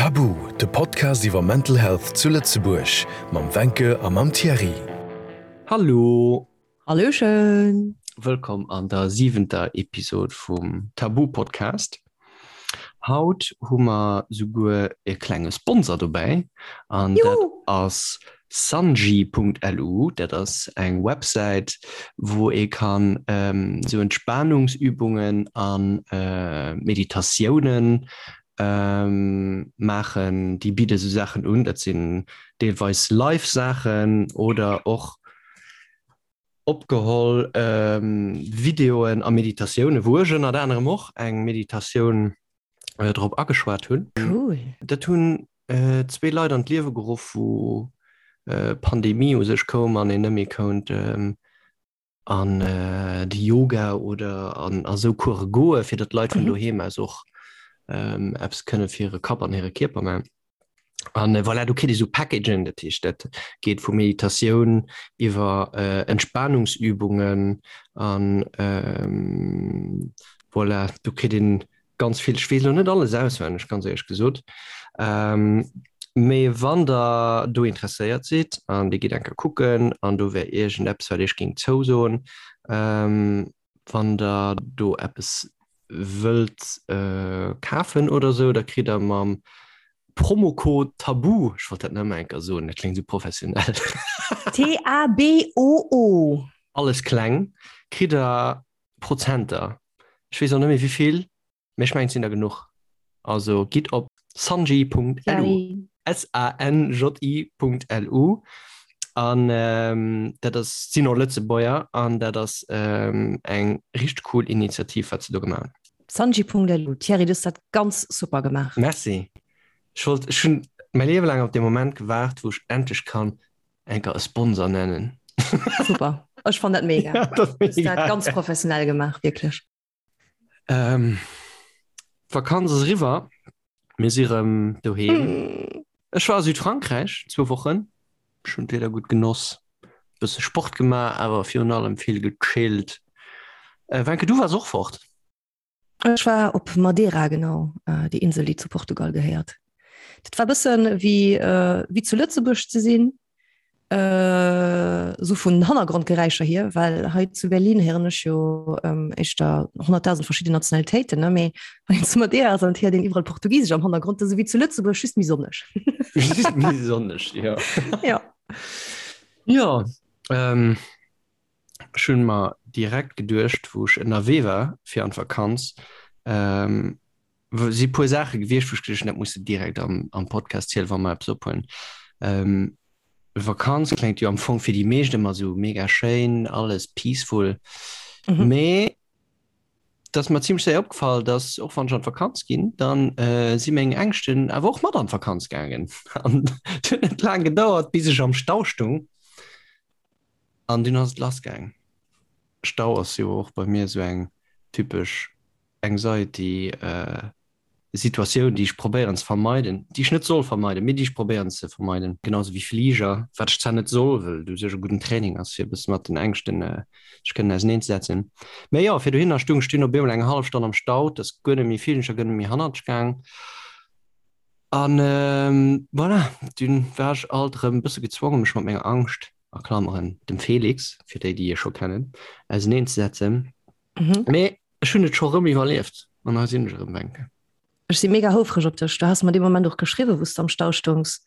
Tabu, de Podcast iwwer Mental Health zu Lëtzebuerg mam Wencke a mam Thierry. Hallo! Hallöchen! Wëllkomm an der siwenter Episod vum Tabu Podcast. Haut hu mer souguer e klenge Sponsor dobäi an dat ass sanji.lu. Dat ass eng Websäit, wou ee kann esou Entspanungsübungen a Meditatiounen maachen. Déi bidde sou Saachen un, dat sinn deelweis live Saachen oder och opgeholl Videoen a Meditatiounen, wou ech ënnert anerem och eng Meditatioun drop ageschwat hunn. Cool. Dat hunn zwee Leit an d'Liewe geruff, wou d'Pandemie u sech koum an een net méi kount an de Yoga oder an a sou Course goe, fir datt d'Leit vun doheem aus och eppes kënne fir hire Kapp an hire Kierper maachen. An voilà, do kritt ee sou Packagen, dat heescht, dat geet vu Meditatioun iwwer Entspanungsübungen an voilà, do kritt een ganz vill. Ech weess elo net alles auswenneg, ganz éierlech gesot. Mee wann der do interesséiert sidd an Dir gitt eng Kéier kucken an do wär iergendeppes, wat Iech géing zousoen, Wann der do eppes wëllt kafen oder sou, da kritt der mam Promocode TABOO, ech wollt dat nëmme eng Kéier soen, dat kléngt sou professionell. T-A-B-O-O. Alles kleng, kritt der Prozenter. Ech weess och net méi wéivill. Mee ech mengen et sinn der genuch. Also gitt op sanji.lu, S-A-N-J-I.lu, an dat ass, sinn och Lëtzebuerger an dat ass eng richteg cool Initiativ wat se do gemaach hunn. Sanji.lu, Thierry, du hues dat ganz super gemaach. Merci. Ech wollt, ech hunn mäi Liewe laang op dee Moment gewaart, wou ech endlech kann enker e Sponsor nennen. Super, ech fann dat mega. Ja, dat ass mega. Du hues dat ganz professionell gemaach, wierklech. Ähm, D'Vakanz ass eriwwer, mir si rëm doheem. Mm. Ech war a Südfrankräich zwou Wochen. Ech hunn d'Wieder gutt genoss, bësse Sport gemaach, awer virun allem vill gechillt. Äh, Wencke, du waars och fort? Ech war op Madeira, genau, äh, déi Insel, déi zu Portugal gehéiert. Dat war bëssen wéi, äh, wéi zu Lëtzebuerg ze sinn. Äh, sou vun Hannergrondgeräischer hier, well hei zu Berlin héieren ech jo ähm, éischter 100.000 verschidden Nationalitéiten, ne? Mee wann een zu Madeira ass, dann héiert een iwwerall Portugisesch am Hannergrond, dat ass ewéi zu Lëtzebuerg, just méi sonneg. Just méi sonneg, jo. Ja. Jo, ähm, ech hunn mer direkt geduecht, wou ech ënnerwee war fir an d'Vakanz, ähm, si puer Saache gewiescht, wou ech geduecht hunn, dat muss de direkt am, am Podcast zielen, wa mer eppes ophuelen. Ähm, Vakanz kléngt jo am Fong fir déi meescht ëmmer sou mega schéin, alles peaceful. Mhm. Mee dat ass mer zimmlech séier opgefall, dass och wann ech an d'Vakanz ginn, dann äh, si meng Ängschten awer och mat an d'Vakanz gaangen. An et huet net laang gedauert, bis ech am Stau stung an dunn ass et lass gaang. Stau ass jo och bei mir sou eng typesch Anxiety Situatioun, déi ech probéieren ze vermeiden, déi ech net soll vermeiden, mee déi ech probéieren ze vermeiden, genau sou wéi Fliger, wat ech zwar net soll, well et u sech e gudden Training ass, fir e bësse mat den Ängschten sech kënnen auseneenzesetzen. Mee jo, fir dohinner stung ech dunn op eemol eng hallef Stonn am Stau, et ass guer net méi vill, ech a guer net méi hannertsch gaang an voilà, dunn war ech alt erëm e bësse gezwongen, mech mat menger Angscht, a Klammeren, dem Felix, fir déi, déi e scho kennen, auseneenzesetzen. Mee Ech hunn et scho rëm iwwerlieft an hei sinn ech erëm, Wencke. Ech si mega houfreg op dech. Du has mer dee Moment och geschriwwen, wou s de am Stau stoungs.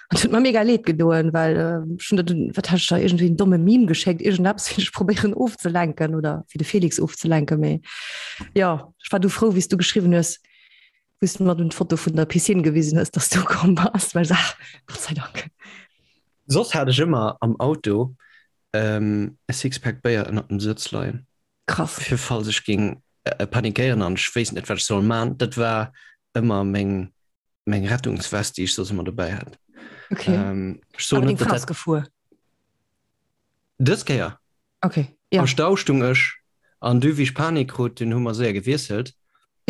An et huet mer mega leed gedoen, well ech hunn der dunn, wat hat ech der, iergendwéi en domme Meme geschéckt, iergendeppes, fir dech probéieren ofzelenken oder fir de Felix ofzelenken. Mee jo, ech war du frou, wéi s du geschriwwen hues, wou s du mer dunn d'Foto vun der Piscine gewisen hues, dass du ukomm bass, well ech sot, ah, Gott sei Dank. Soss hat ech ëmmer am Auto e Sixpack Béier ënnert dem Sëtz leien. Krass. Fir falls ech géing panikéieren an ech wéisst net wat ech soll man. Dat war ëmmer meng meng Rettungswest déi ech soss ëmmer dobäi hat. Okay. Ähm, ech soen net, dat gefuer. Dës Kéier. Okay. Ja. Am Stau stung ech an du wéi ech Panik krut, dunn hu mer séier gewiesselt.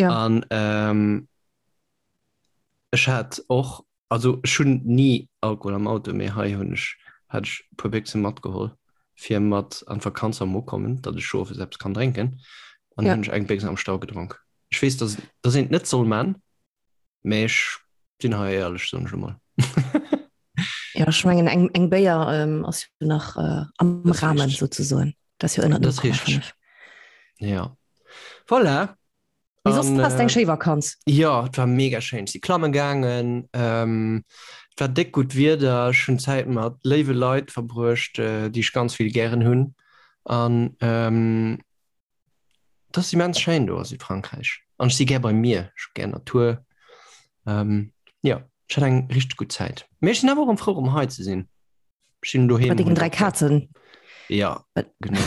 Ja. An ähm, ech hat och Also ech hunn ni Alkohol am Auto, mee hei hunn ech, hat ech e puer Béchse matgeholl fir mat an d'Vakanz am Ukommen, datt ech owes eppes kann drénken. An ja. hunn ech eng Béchs am Stau gedronk. Ech weess, datt, datt een et net soll man, mee ech Sinn hei éierlech, soen ech emol. Ja, ech mengen eng, eng Béier ähm, ass jo nach äh, am Das Rahmen richteg. sozusagen. Dat ass jo ënner Das richteg. 0,5. Ja. Voilà. Mee soss An, has eng äh, schéi Vakanz. Ja, et war mega schéin. Ech si klamme gaangen. Ähm, et war déck gutt Wieder. Ech hunn Zäit mat léiwe Leit verbruecht, äh, déi ech ganz vill gären hunn. An ähm, Et ass immens schéin do a Südfrankräich. An ech si gär beim Mier, ech hu gär Natur. Ähm, jo, ech hat eng richteg gutt Zäit. Mee ech sinn awer och erëm frou, erëm hei ze sinn. Ech sinn doheem. Mat dengen 3 Kazen. Ja, genau.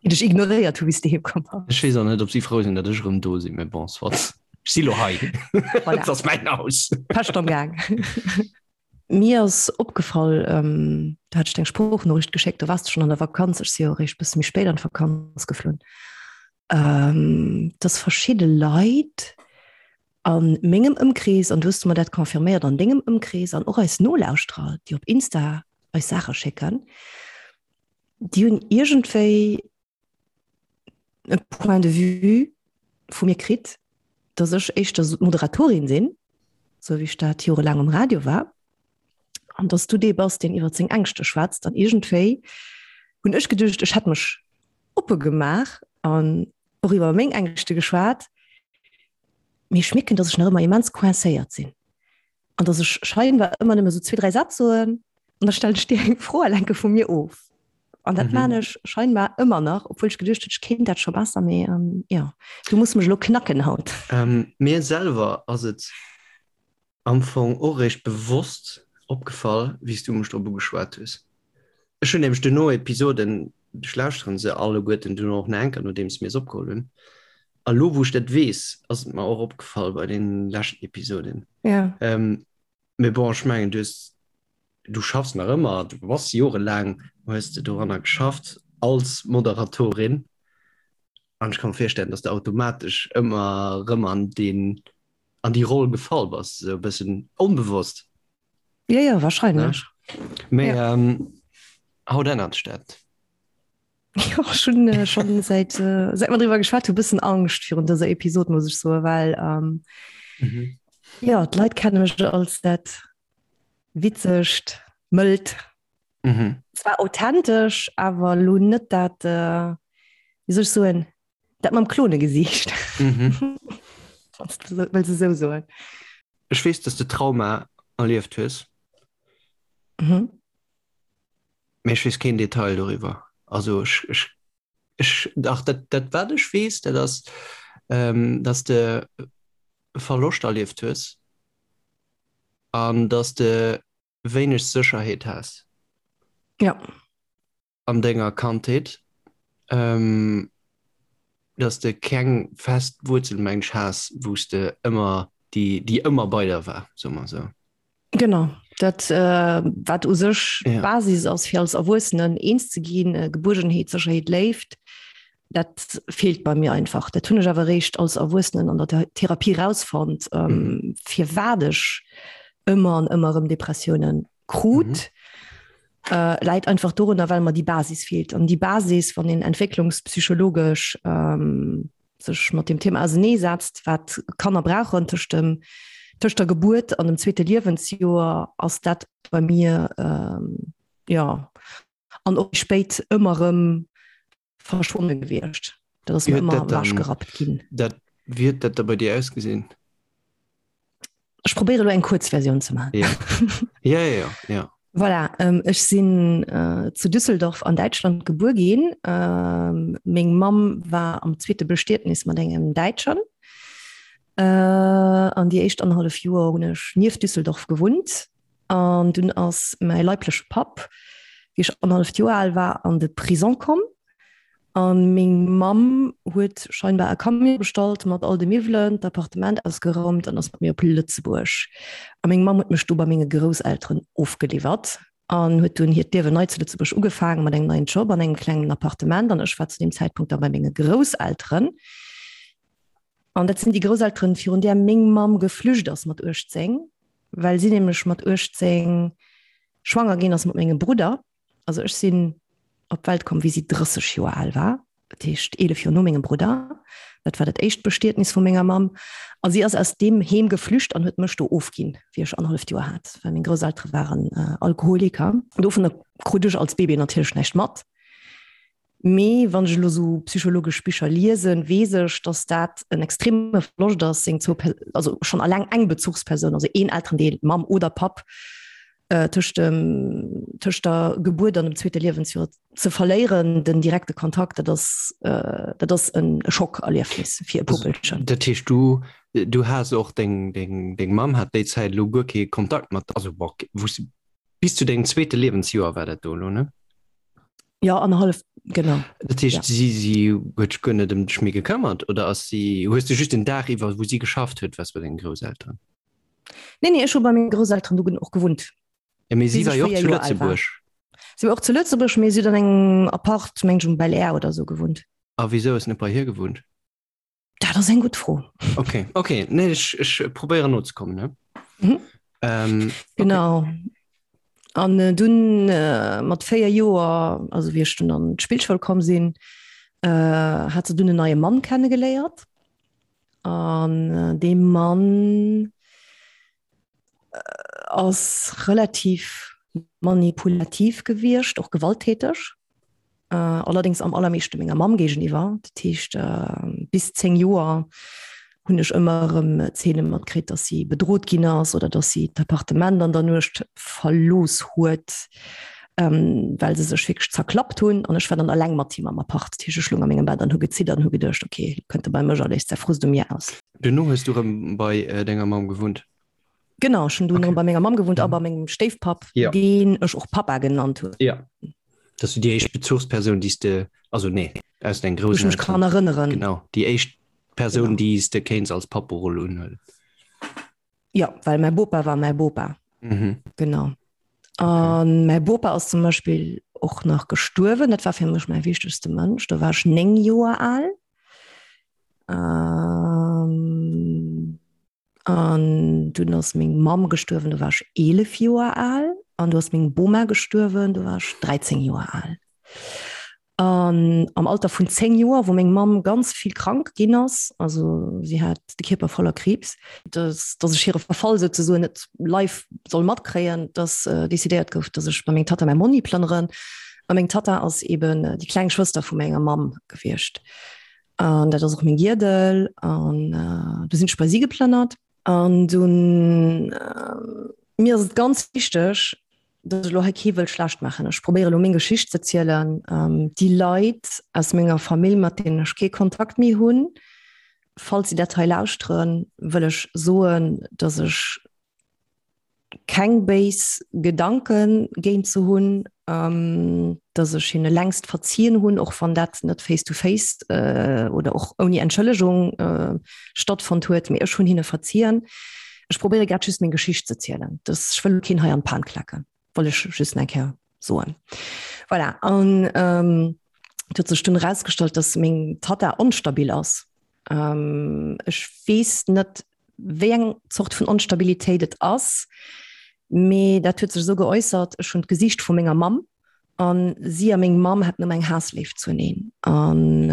Déi dech ignoréiert hu wéi s de heem komm bass. Ech weess och net, ob si frou sinn, datt ech erëm do sinn, mee bon, soit. Ech si lo hei. Voilà. Et ass mäin Haus. Pescht am Gaang. Mir ass opgefall, do hat ech der eng Sproochnoriicht geschéckt, do waars de schonn an der Vakanz, ech si jo eréischt bësse méi spéit an d'Vakanz geflunn, dass verschidde Leit a mengem Ëmkrees, an du hues mer dat confirméiert an dengem Ëmkrees, an och eis Nolauschterer, déi op Insta eis Saache schécken, déi hunn iergendwéi e Point de vue vu mir kritt, dass ech éischter d'Moderatorin sinn, sou wéi ech dat jorelaang um Radio war, an dass du dee bass, deen iwwer seng Ängschte schwätzt. An iergendwéi hunn ech geduecht, ech hätt mech oppe gemaach an och iwwer meng Ängschte geschwat, mee ech mierken, dass ech nach ëmmer immens coincéiert sinn an dass ech scheinbar ëmmer nëmme sou zwee, dräi Sätz soen an da stellen ech dir eng Fro a lenke vu mir of. An dat mhm. maan ech scheinbar ëmmer nach, obwuel ech geduecht hunn, ech kéint dat scho besser, mee ähm, ja, du muss mech lo knacken haut. Ähm, mir selwer ass et am Fong och réischt bewosst opgefall, wéi s du mech drop ugeschwat hues. Ech hunn nämlech duerno Episoden, ech lauschteren se alleguerten duerno och nach eng Kéier, nodeems mir se opgeholl hunn. A lo wou ech dat weess, ass et mer och opgefall bei den leschten Episoden. Ja. Ähm, mee bon, ech mengen, du hues Du schaffs nach ëmmer, du bass jorelaang hues de doranner geschafft als Moderatorin an ech ka mer virstellen, dass de automatesch ëmmer erëm an deen, an déi Roll gefall bass, esou e bëssen onbewosst. Jo, jo, wahrscheinlech. Mee haut ännert sech dat. Jo, ech hunn schonn säit säit mer driwwer geschwat hu bëssen Angscht virun dëser Episod, muss ech soen, well jo, d'Leit kenne mech als dat Witzegt, mëllt. Mhm. Zwar authentesch, awer lo net dat, äh, wéi soll ech soen, dat mam Klonegesiicht. Mhm. Wann s du wëlls esou soen. Ech weess, dass de Trauma erlieft hues. Mhm. Mee ech weess keen Detail doriwwer. Also ech, ech, ech, dach, dat, dat wat ech weess, dat ass, ähm, dass de Verloscht erlieft hues. An dass de wéineg Sécherheet has. Ja. An denger Kandheet. Ähm, dass de keng fest Wuerzel, meng ech, has, wou s de ëmmer, déi, déi ëmmer bei der war, soe mer esou. Genau, dat wat u sech Ja. d'Basis ass, fir als Erwuessenen eens ze ginn, Gebuergenheet, Sécherheet, Léift, dat feelt bei mir einfach. Dat hunn ech awer eréischt als Erwuessenen an der Therapie rausfonnt, ähm, firwat ech ëmmer an ëmmer erëm Depressiounen krut. Äh, läit einfach dorunner, well mer déi Basis feelt. An déi Basis, wann een entwécklungspsychologesch ähm, sech mat dem Thema auseneesetzt, wat Kanner brauchen tëscht dem tëscht der Gebuert an dem zweete Liewensjoer, ass dat bei mir ähm, ja an och spéit ëmmer erëm verschwonne gewiescht. Dat ass mir ëmmer ewechgerappt ginn. Dat, wéi huet dat da bei dir ausgesinn? Ech probéiere lo eng kuerz Versioun ze maachen. Ja, ja, ja, ja. Voilà, ähm, ech sinn äh, zu Düsseldorf an Däitschland gebuer ginn. Ähm, meng Mamm war am zweete Bestietnis mat engem Däitschen. Äh, an déi éischt annerhallef Joer hunn ech nieft Düsseldorf gewunnt. An dunn ass mäi leibleche Papp, wéi ech annerhalleft Joer al war, an de Prison komm. A meng Mamm huet scheinbar e Camion bestallt mat all de Miwwelen, d'Appartement ausgeraumt an ass mat mir op Lëtzebuerg. A meng Mamm huet mech do bei menge Grousselteren ofgeliwwert an huet dunn hiert Liewen nei zu Lëtzebuerg ugefaangen mat engem neien Job an engem klengen Appartement. An ech war zu deem Zäitpunkt da bei menge Grousselteren. An dat sinn déi Grousselteren, virun där meng Mamm geflücht ass mat 18, well si nämlech mat 18 schwanger ginn ass mat mengem Brudder. Also ech sinn op d'Welt komm, wéi si 30 Joer al war, dat heescht 11 Joer no mengem Brudder. Dat war dat éischt Bestietnis vu menger Mamm. A si ass aus deem Heem geflücht an huet mech do ofginn, wéi ech annerhalleft Joer hat, well meng Grousseltere waren Alkoholiker. Dovunner krut ech als Bébé natierlech näischt mat. Mee wann ech elo sou psychologesch Bicher liesen, weess ech, datt dat en extreme Verloscht ass, seng zwou, also schonn alleng eng Bezuchspersoun, also een Elterendeel, Mamm oder Papp, tëscht dem, tëscht der Gebuert an dem zweete Liewensjoer ze verléieren, den direkte Kontakt, dat ass, dat ass en Schockerliefnis fir e Puppelchen. Dat heescht, du, du has och deng, deng, deng Mamm hat déi Zäit elo guer kee Kontakt mat, also bon, wou s, bis zu dengem zweete Liewensjoer war dat do elo, ne? Ja, annerhallef, genau. Dat heescht, ja. si, si huet sech guer net ëm dech méi gekëmmert oder ass si, hues du just den Dag iwwer, wou si geschafft huet, waars bei dengen Grousselteren? Nee, nee, ech hu bei menge Grousselteren du och gewunnt. Ja, mee si war jo och zu Lëtzebuerg. Si war och zu Lëtzebuerg, mee si huet an engem Apart, meng ech, um Bel Air oder sou gewunnt. A wisou ass net bei hir gewunnt? Dat ass eng gutt Fro. Okay, okay. Nee, ech, ech probéieren nozekommen, ne? Mhm. Ähm, genau. Okay. An äh, dunn äh, mat 4 Joer, also wéi ech dunn an d'Spillschoul komm sinn, äh, hat se dunn en neie Mann kennegeléiert. An äh, dee Mann äh, ass relativ manipulativ gewiescht, och gewalttäteg. Allerdéngs am allermeeschte menger Mamm géigeniwwer. Dat heescht, bis 10 Joer hunn ech ëmmer erëm Zeene matkritt, datt si bedrot ginn ass oder datt si d'Appartement an der Nuecht verlooss huet, well se sech wierklech zerklappt hunn. An ech war dann eleng mat him am Appart. Dat heescht, ech loung a mengem Bett an hu geziddert an hu geduecht, okay, elo kënnt e bei mech a léisst säi Frust u mir aus. Duerno hues du erëm bei denger Mamm gewunnt? Genau, ech hunn dunn okay. bei menger Mamm gewunnt a mhm. bei mengem Stéifpapp, ja. deen ech och Papa genannt hunn. Ja. Dat du déi éischt Bezuchspersoun, déi de also nee aus deng groussen mech kann erënneren. Genau déi éischt Persoun, déi s de kéints als Papperoll unhuelen. Ja, well mäi Bopa war mäi Bopa. Mhm. Genau. An okay. mäi Bopa ass zum Beispill och nach gestuerwen. Dat war fir mech mäi wichtegste Mënsch. Do war ech 9 Joer al. Ähm, An dunn ass meng Mamm gestuerwen, do war ech 11 Joer al. An du ass meng Boma gestuerwen, do war ech 13 Joer al. An am Alter vun 10 Joer, wou meng Mamm ganz vill krank ginn ass, also si hat de Kierper voller Kriibs, dass, dass ech hire Verfall souzesoen net live soll matkréien, dass decidéiert gouf, dass ech bei meng Tatta, mäi Monni plënneren. A meng Tatta ass eben déi kleng Schwëster vu menger Mamm gewiescht. An dat ass och meng Giedel. An äh, du sinn ech bei si geplënnert. An dunn äh, mir ass et ganz wichteg, dass ech elo hei kee wëll schlecht maachen. Ech probéiere elo meng Geschicht ze zielen. Ähm, déi Leit aus menger Famill, mat deenen ech kee Kontakt méi hunn, falls si dat hei lauschteren, wëll ech soen, dass ech keng béis Gedanke géint se hunn, dass ech hinne längst verzien hunn, och wann dat net face to face oder och ouni Entschëllegung stattfonnt huet, mee ech hunn hinne verzien. Ech probéiere grad just meng Geschicht ze zielen. Dass ech wëll keen hei an d'Pan klacken, wollt ech just eng Kéier soen. Voilà, an et huet sech dunn erausgestallt, dass meng Tatta onstabil ass. Ech weess net, wéi eng Zort vun Onstabilitéit et ass, mee dat huet sech esou geäussert, ech hunn d'Gesiicht vu menger Mamm an si a meng Mamm haten ëmmer eng Haassléift zueneen. An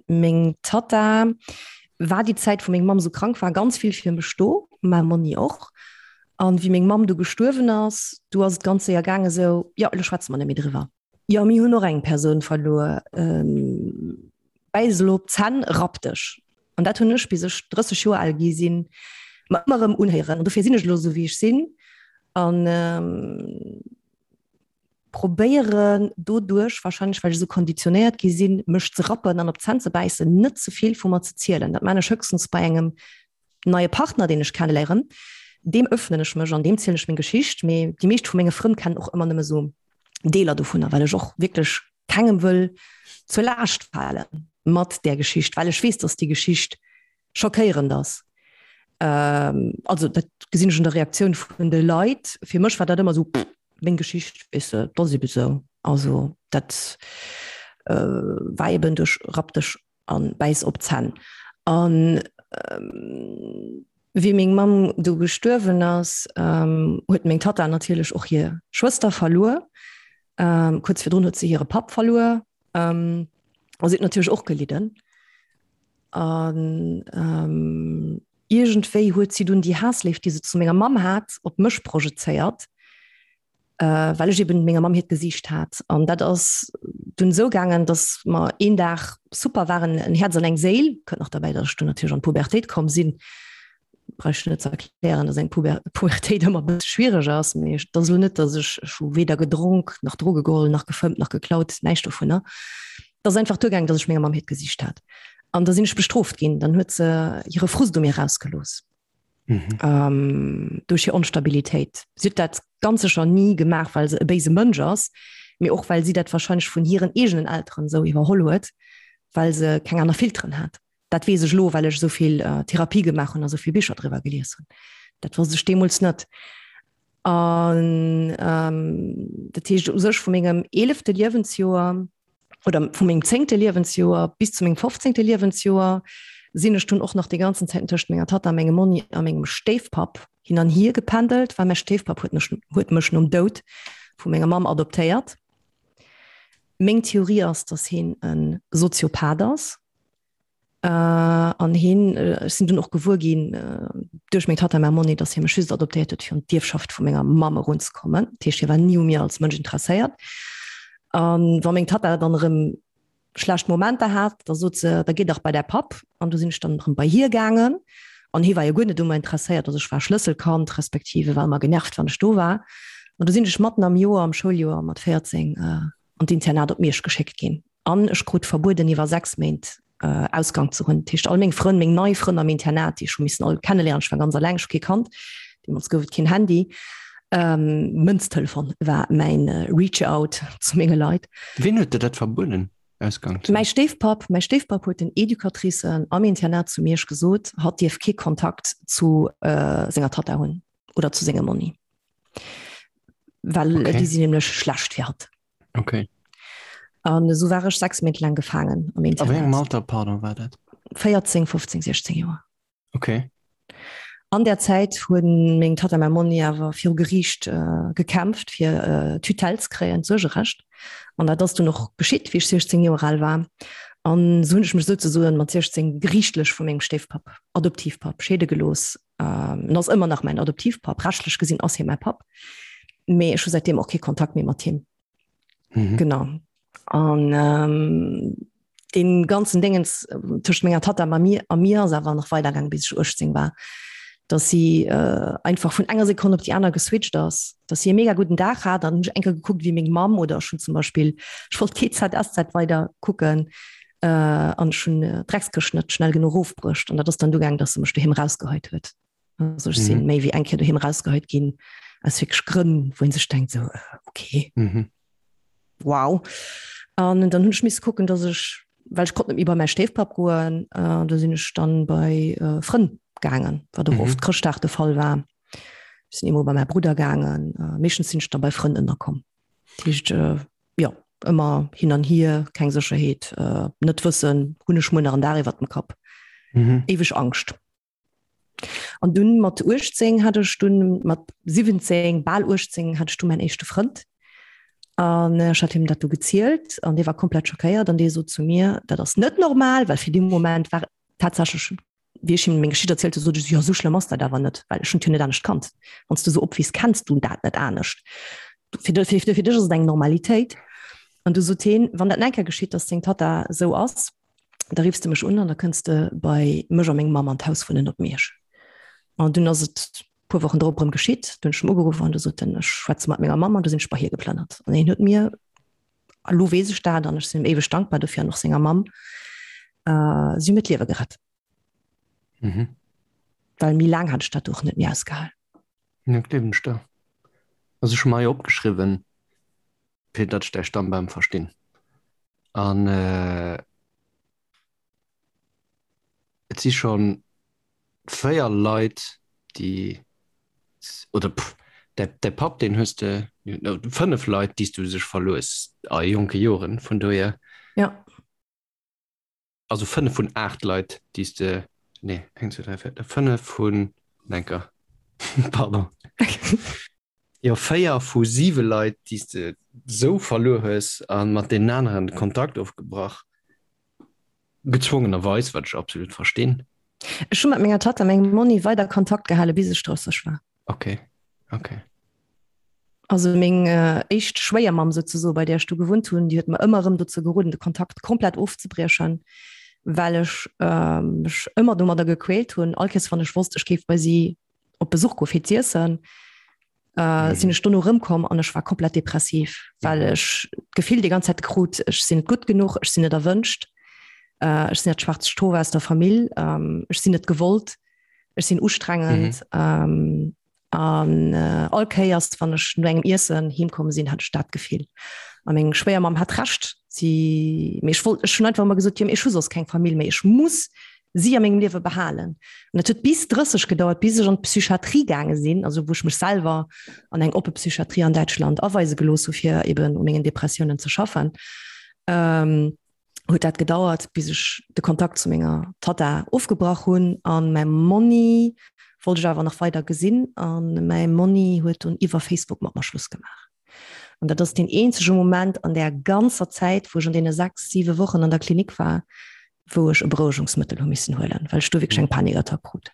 meng Tatta war déi Zäit, wou meng Mamm esou krank war, ganz vill fir mech do, mäi Monni och. An wéi meng Mamm du gestuerwen ass, du ass et ganz séier gaangen esou, jo, elo schwätze mer net méi driwwer. Jo, mir hunn och eng Persoun verluer. Bäiss elo op d'Zänn, rapp dech. An dat hunn ech, bis ech 30 Joer al gi sinn, mer ëmmer erëm unhéieren. An dofir sinn ech elo esou, wéi ech sinn. An probéieren doduerch, warscheinlech well ech esou konditionéiert gi sinn, mech ze rappen an op d'Zänn ze bäissen, net ze vill vu mer ze zielen. Dat maan ech höchstens bei engem neie Partner, deen ech kenneléieren, deem öffnen ech mech an deem zielen ech meng Geschicht. Mee déi meescht vu menge Frënn kennen och ëmmer nëmme sou Deeler dovunner, well ech och wierklech kengem wëll zur Laascht fale mat där Geschicht, well ech weess, dass déi Geschicht schockéierend ass. Also dat gesinn ech un der Reaktioun vun de Leit. Fir mech war dat ëmmer sou, pff, meng Geschicht, weess de, dat ass ebe sou. Also dat war eben duerch Rapp dech an bäiss op d'Zänn. An wéi meng Mamm du gestuerwen ass, huet meng Tatta natierlech och hir Schwëster verluer. Kuerz virdrun huet se hire Papp verluer. A si huet natierlech och gelidden. An ähm, iergendwéi huet si dunn déi Haassléift, déi se zu menger Mamm hat, op mech projezéiert, äh, well ech eben menger Mamm hiert Gesiicht hat. An dat ass dunn esou gaangen, dass mer een Dag super waren, en Häerz an eng Séil, kënnt nach derbäi, dass ech dunn natierlech an d'Pubertéit komm sinn, brauch ech net ze erklären, dass eng Puber Pubertéit ëmmer e bësse schwiereg ass, mee et ass elo net, dass ech, ech hu weder gedronk, nach Droge geholl, nach gefëmmt, nach geklaut, näischt dovunner. Et ass einfach duergaangen, dass ech menger Mamm hiert Gesiicht hat. An da sinn ech bestrooft ginn, dann huet se hire Frust u mir rausgelooss. Mhm. Ähm, duerch hir Onstabilitéit. Si huet dat ganz sécher ni gemaach, well se e béise Mënsch ass, mee och well si dat warscheinlech vun hiren eegenen Elteren esou iwwerholl huet, well se keng aner Filteren hat. Dat weess ech elo, well ech esou vill Therapie gemaach hunn a esou vill Bicher driwwer gelies hunn. Dat wosst ech deemools net. An dat heescht u sech vu mengem eelefte Liewensjoer oder vu mengem zéngte Liewensjoer bis zu mengem fofzéngte Liewensjoer sinn ech dunn och nach déi ganzen Zäiten tëscht menger Tatta, mengem Monni a mengem Stéifpapp hin an hier gependelt, well mäi Stéifpapp huet mech, huet mech nom Doud vu menger Mamm adoptéiert. Meng Theorie ass, datt hien e Soziopath ass. An hien, ech sinn dunn och gewuer ginn duerch meng Tatta, mäi Monni, datt hie mech just adoptéiert huet, fir un d'Ierfschaft vu menger Mamm erunzekommen. Dat heescht, hie war ni u mir als Mënsch interesséiert. A wa meng Tatta dann erëm schlecht Momenter hat, da sot se, da géi dach bei däi Papp. An du sinn ech dann erëm bei hie gaangen. An hie war jo guer net u mer interesséiert. Also ech war Schlësselkand, respektiv e war ëmmer genervt, wann ech do war. An du sinn ech matten am Joer, am Schouljoer mat 14, an d'Internat op Miersch geschéckt ginn. An ech krut verbueden, iwwer 6 Méint Ausgang ze hunn. Dat heescht, all meng Frënn, meng nei Frënn am Internat, déi ech hu missen all kenneléieren, ech war ganz eleng, ech hu kee kannt, deemools gouf et keen Handy, Mënztelefon war mäin Reach-out zu menge Leit. Wien huet der dat verbueden, Ausgang ze hunn? Mäi Stéifpapp. Mäi Stéifpapp huet den Educatricen am Internat zu Miersch gesot, hatt dierf kee Kontakt zu senger Tatta hunn oder zu sengem Monni. Well okay. déi sinn nämlech schlecht fir hatt. Okay. An esou war ech 6 Méint laang gefaangen am Internat. A wéi engem Alter, pardon, war dat? 14, 15, 16 Joer. Okay. An der Zäit hunn meng Tatta a mäi Monni awer viru Geriicht äh, gekämpft, fir äh, Tutelle ze kréien, d'Suergerecht. An dat ass dunn och geschitt, wéi ech 16 Joer al war. An esou hunn ech mech souzesoen mat 16 geriichtlech vu mengem Stéifpapp, Adoptivpapp, scheede gelooss. Ähm, en ass ëmmer nach mäin Adoptivpapp, rechtlech gesinn ass hie mäi Papp, mee ech hu säitdeem och kee Kontakt méi mat him. Mhm. Genau. An ähm, den ganzen Dingens äh, tëscht menger Tatta a mir a mir ass awer nach weidergaang bis ech 18 war, dass si äh, einfach vun enger Sekonn op déi aner geswitcht ass, dass si e mega gudden Dag hat, dann hunn ech eng Kéier gekuckt wéi meng Mamm oder ech hunn zum Beispill ech wollt GZSZ weider kucken äh, an ech hunn äh, d'Dreckskëscht net schnell genuch erofbruecht an dat ass dann du gaang, dass se mech doheem rausgeheit huet. Also ech sinn mhm. méi wéi eng Kéier doheem rausgeheit ginn aus wierklech Grënn, wou een sech denkt so äh, okay. Mhm. Wow. An dann hunn ech misse kucken, dass ech well ech konnt net méi bei mäi Stéifpapp goen, äh, da sinn ech dann bei äh, Frënn gaangen, wat och mhm. oft Chrëschtdag de Fall war. Ech sinn eemol bei mäi Brudder gaangen, äh, meeschtens sinn ech dann bei Frënn ënnerkomm. Dat heescht, äh, jo, ëmmer hin an hier, keng Sécherheet, äh, net wëssen, hunn ech muer nach en Daach iwwer dem Kapp. Mhm. Éiweg Angscht. An dunn mat 18 hat ech dunn mat 17, bal 18 hat ech du mäin éischte Frënd. An ech hat him dat du gezielt an dee war komplett schockéiert an dee sot zu mir, dat ass net normal, well fir dee Moment war tatsächlech wéi ech him meng Geschicht erzielt hu, sot ech, jo esou schlëmm ass dat awer net, well ech hunn et jo net anescht kannt. Wann s du esou opwiiss, kenns du dat net anescht. Fir fir fir dech ass et eng Normalitéit. An du sot heen, wann dat nach eng Kéier geschitt, datt deng Tatta esou ass, da riffs de mech un an da kënns de bei mech a meng Mamm an d'Haus wunnen op Miersch. An dunn ass et puer Wochen drop erëm geschitt, du hunn ech em ugeruff an du sot en, ech schwätze mat menger Mamm an du sinn ech bei hie geplënnert. An hien huet mir, a lo weess ech dat an ech sinn him éiweg dankbar dofir an och senger Mamm, äh, si hu mir d'Liewe gerett. Mhm. Well méi laang hat ech dat och net méi ausgehal. Ja, gleewen ech der. Also ech hu mer hei opgeschriwwen, fir datt ech däi Stammbam verstinn. An et si scho 4 Leit, déi, oder pff, däi, däi Papp, deen hues de, 5 Leit, déi s du sech verluer hues a jonke Joren, vun dohier. Ja. Also 5 vun 8 Leit, déi s de, nee, 1, 2, 3, 4, 5 vun, enker, pardon. Jo, 4 vu 7 Leit, déi s de sou verluer hues a mat deenen aneren de Kontakt ofgebrach. Gezwongenerweis, wat ech absolut verstinn. Ech hu mat menger Tatta, mengem Monni, weider Kontakt gehale bis ech 30 war. Okay, okay. Also meng éischt Schwéiermamm souzesoen, bei där ech du gewunnt hunn, déi huet mer ëmmer erëm dozou geroden, de Kontakt komplett ofzebriechen, well ech mech ëmmer domadder gequält hunn. All Kéiers wann ech wosst, ech géif bei si op Besuch goe fir z'iessen, sinn ech dono erëmkomm an ech war komplett depressiv, well ech d'Gefill déi ganz Zäit krut, ech sinn net gutt genuch, ech sinn net erwënscht, ech sinn dat schwaarzt Schof aus der Famill, ech sinn net gewollt, ech sinn ustrengend. An all Kéiers, wann ech no engem Iessen heemkomm sinn, hat ech dat Gefill. A meng Schwéiermamm hat Recht. Si, mee ech wollt, ech hunn einfach ëmmer gesot, jo, mee ech hu soss keng Famill méi, ech muss si a mengem Liewe behalen. An et huet bis 30 gedauert, bis ech an d'Psychiatrie gaange sinn, also wou ech mech selwer an eng oppe Psychiatrie an Däitschland aweise gelooss hu fir eben u mengen Depressiounen ze schaffen. Huet dat gedauert, bis ech de Kontakt zu menger Tatta ofgebrach hunn. An mäi Monni wollt ech awer nach weider gesinn. An mäi Monni huet dunn iwwer Facebook mat mer Schluss gemaach. An dat ass deen eenzege Moment an där ganzer Zäit, wou ech an deene 6, 7 Wochen an der Klinik war, wou ech e Berouegungsmëttel hu missen huelen, well ech do wierklech eng Panikattack krut.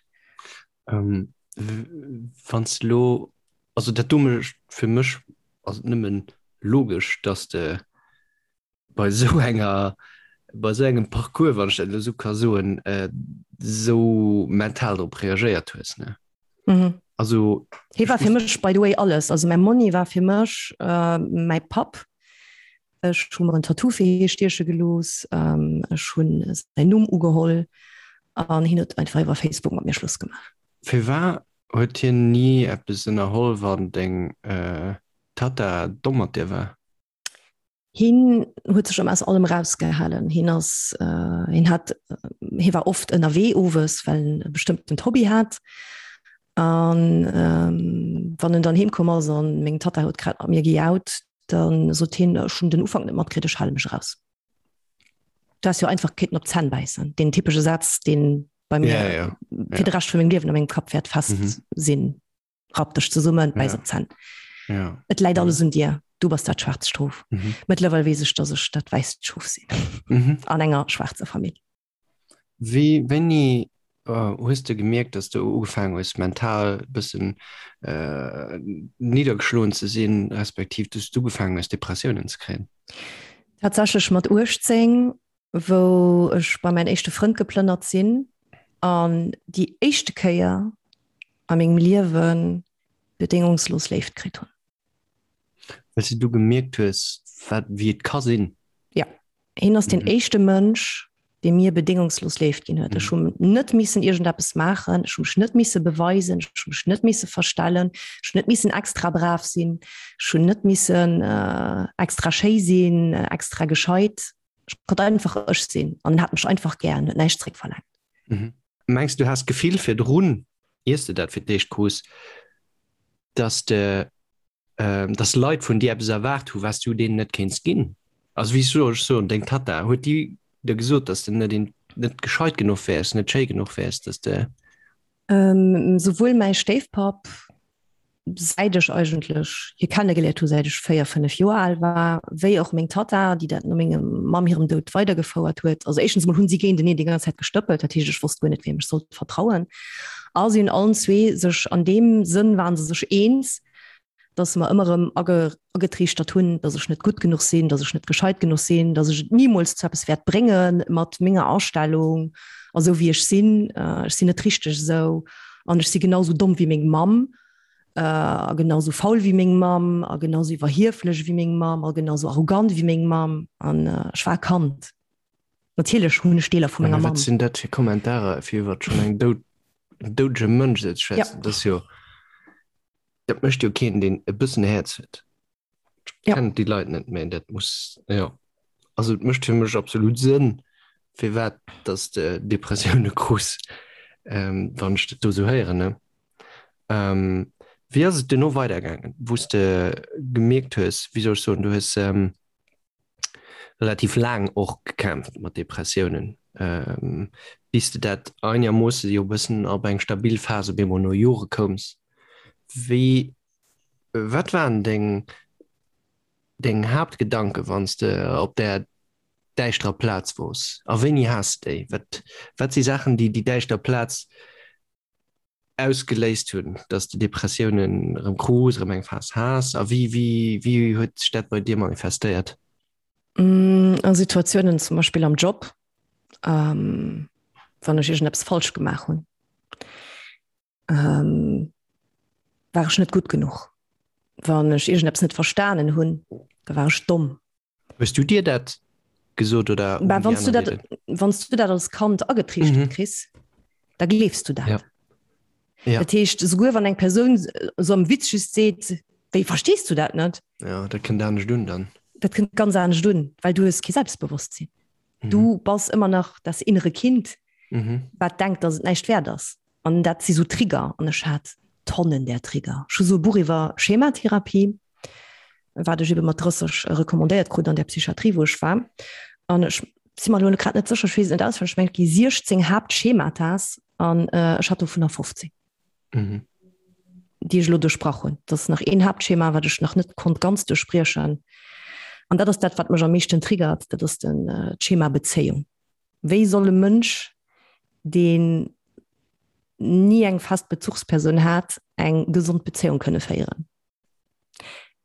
Wann s de elo, also dat do mécht fir mech, ass et nëmmen logesch, dass de bei esou enger, bei esou engem Parcours, wann ech dat elo esou ka soen, esou mental drop reagéiert hues, ne? Mhm. Also Hie war fir mech by the way alles. Also mäi Monni war fir mech äh, mäi Papp. Ech hu mer en Tattoo fir hie stieche gelooss. Ähm, ech hunn säin Numm ugeholl an hien huet einfach iwwer Facebook mat mir Schluss gemaach. Firwat huet hien ni eppes ënnerholl, wann deng äh, Tatta domm mat dir war? Hien huet sech ëmmer aus allem erausgehalen. Hien ass, hien hat, hie war oft ënnerwee owes, well en e bestëmmtent Hobby hat. An wann en dann heem komm ass an meng Tatta huet grad mat mir gejaut, da sot hien, ech hunn den Ufank net matkritt, ech hale mech eraus. Du häss jo einfach kéinten op d'Zänn bäissen. Deen typesche Saz, dee bei mir ja, ja. fir de Rescht vu mengem Liewen a mengem Kapp wäert fest mhm. sinn. Rapp dech zesummen, bäiss op d'Zänn. Ja. Et läit alles un dir. Du bass dat schwaarzt Schof. Mhm. Mëttlerweil weess ech, dass ech dat wäisst Schof sinn. Mhm. An enger schwaarzer Famill. Wéi, wéini äh, hues de gemierkt, dass du ugefaangen hues, mental e bëssen äh, niddergeschloen ze sinn, respektiv dass du ugefaangen hues, Depressiounen ze kréien? Tatsächlech mat 18, wou ech bei mäin éischte Frënd geplënnert sinn an déi éischte Kéier a mengem Liewe bedéngungslos Léift kritt hunn. Well s de du gemierkt hues, wat, wéi et ka sinn. Ja. Hien ass deen éischte Mënsch, dee mir bedéngungslos Léift ginn huet. Ech hunn net missen iergendeppes maachen, ech hu mech net misse beweisen, ech hu mech net misse verstellen, ech hunn net missen extra brav sinn, ech hunn net missen extra schéi sinn, extra gescheit. Ech konnt einfach ech sinn an en hat mech einfach gär an huet näischt zréckverlaangt. Mhm. Mengs du has d'Gefill virdrun, iers de dat fir d'éischt krus, dass de, dass Leit vun dir eppes erwaart hu wat s du deenen net kéints ginn? Also wéi soll ech soen, deng Tatta, huet déi der gesot, dass de net een, net gescheit genuch wäers, net schéi genuch wäers, dass de. Souwuel mäi Stéifpapp säit ech eigentlech hie kennegeléiert hu säit ech 4, 5 Joer al war, wéi och meng Tatta, déi dat no mengem Mamm hirem Doud weidergefouert huet. Also éischtens emol hunn si géinteneen déi ganz Zäit gestëppelt, dat heescht ech wosst guer net wiem ech sollt vertrauen. A si hunn allen zwee sech an deem Sënn waren se sech eens, datt se mer ëmmer erëm agetriichtert hunn, datt ech net gutt genuch sinn, datt ech net gescheit genuch sinn, datt ech et nimools zu eppes wäert brénge mat menger Astellung a sou wéi ech sinn. Ech sinn net richteg esou an ech si genau sou domm wéi meng Mamm a genau sou faul wéi meng Mamm a genau sou iwwerhieflech wéi meng Mamm a genau sou arrogant wéi meng Mamm an ech war e Kand. Natierlech hunn ech Deeler vu menger Mamm. Wat sinn dat fir Kommentarer fir iwwer schonn eng doud, en doudege Mënsch esou ze schwätzen? Dat ass jo, dat mécht jo keen, deen e bëssen Häerz huet. Ja. Kennen déi Leit net méi, dat muss, jo. Also et mécht fir mech absolut Sënn, firwat dass de Depressioune krus, ähm, wann ech dat do esou héieren, ne? Ähm, wéi ass et duerno weidergaangen, wou s de gemierkt hues, wéi soll ech soen, du hues ähm, relativ laang och gekämpft mat Depressiounen, ähm, bis de dat einermoosse jo e bëssen op eng stabil Phas op eemol no Jore koums. Wéi Wat waren deng deng Haaptgedanken, wann s de op där. däischterer Plaz wors? A wéini has de déi? Wat, wat si Saachen, déi déi däischter Plaz ausgeléist hunn, dass de Depressiounen erëm krus, erëm eng Phas has? A wéi, wéi, wéi huet sech dat bei dir manifestéiert? A Situatiounen zum Beispill am Job, wann ech iergendeppes falsch gemaach hunn, war ech net gutt genuch. Wann ech iergendeppes net verstanen hunn, da war ech domm. Hues du dir dat gesot oder Bah, wann du dat, wann du dat als Kand agetriichtert mhm. kriss, da gleefs du dat. Ja. Ja. Dat heescht, souguer wann eng Persoun so am Witz just seet, wéi verstees du dat net? Ja, dat kënnt anescht un dann. Dat kënnt ganz anescht un, well du hues kee Selbstbewosstsinn. Mhm. Du bass ëmmer nach das innere Kind, mhm. wat denkt, dass et näischt wäert ass. An dat si sou Trigger an ech hat Tonnen där Trigger. Ech hu sou e Buch iwwer Schematherapie, wat ech ebe mat 30 recommandéiert krut an der Psychiatrie, wou ech war. An ech si mer elo grad net sécher, ech weess et net auswenneg, ech mengen et gi 16 Haaptschematas an ech hat dovunner 15. Mhm. Déi ech elo duerchbrach hunn. Dat ass nach een Haaptschema, wat ech nach net konnt ganz duerchbriechen. An dat ass dat, wat mech am meeschten triggert, dat ass den d'Schema Bezéiung. Wéi soll e Mënsch, deen ni eng fest Bezuchspersoun hat, eng gesond Bezéiung kënne féieren?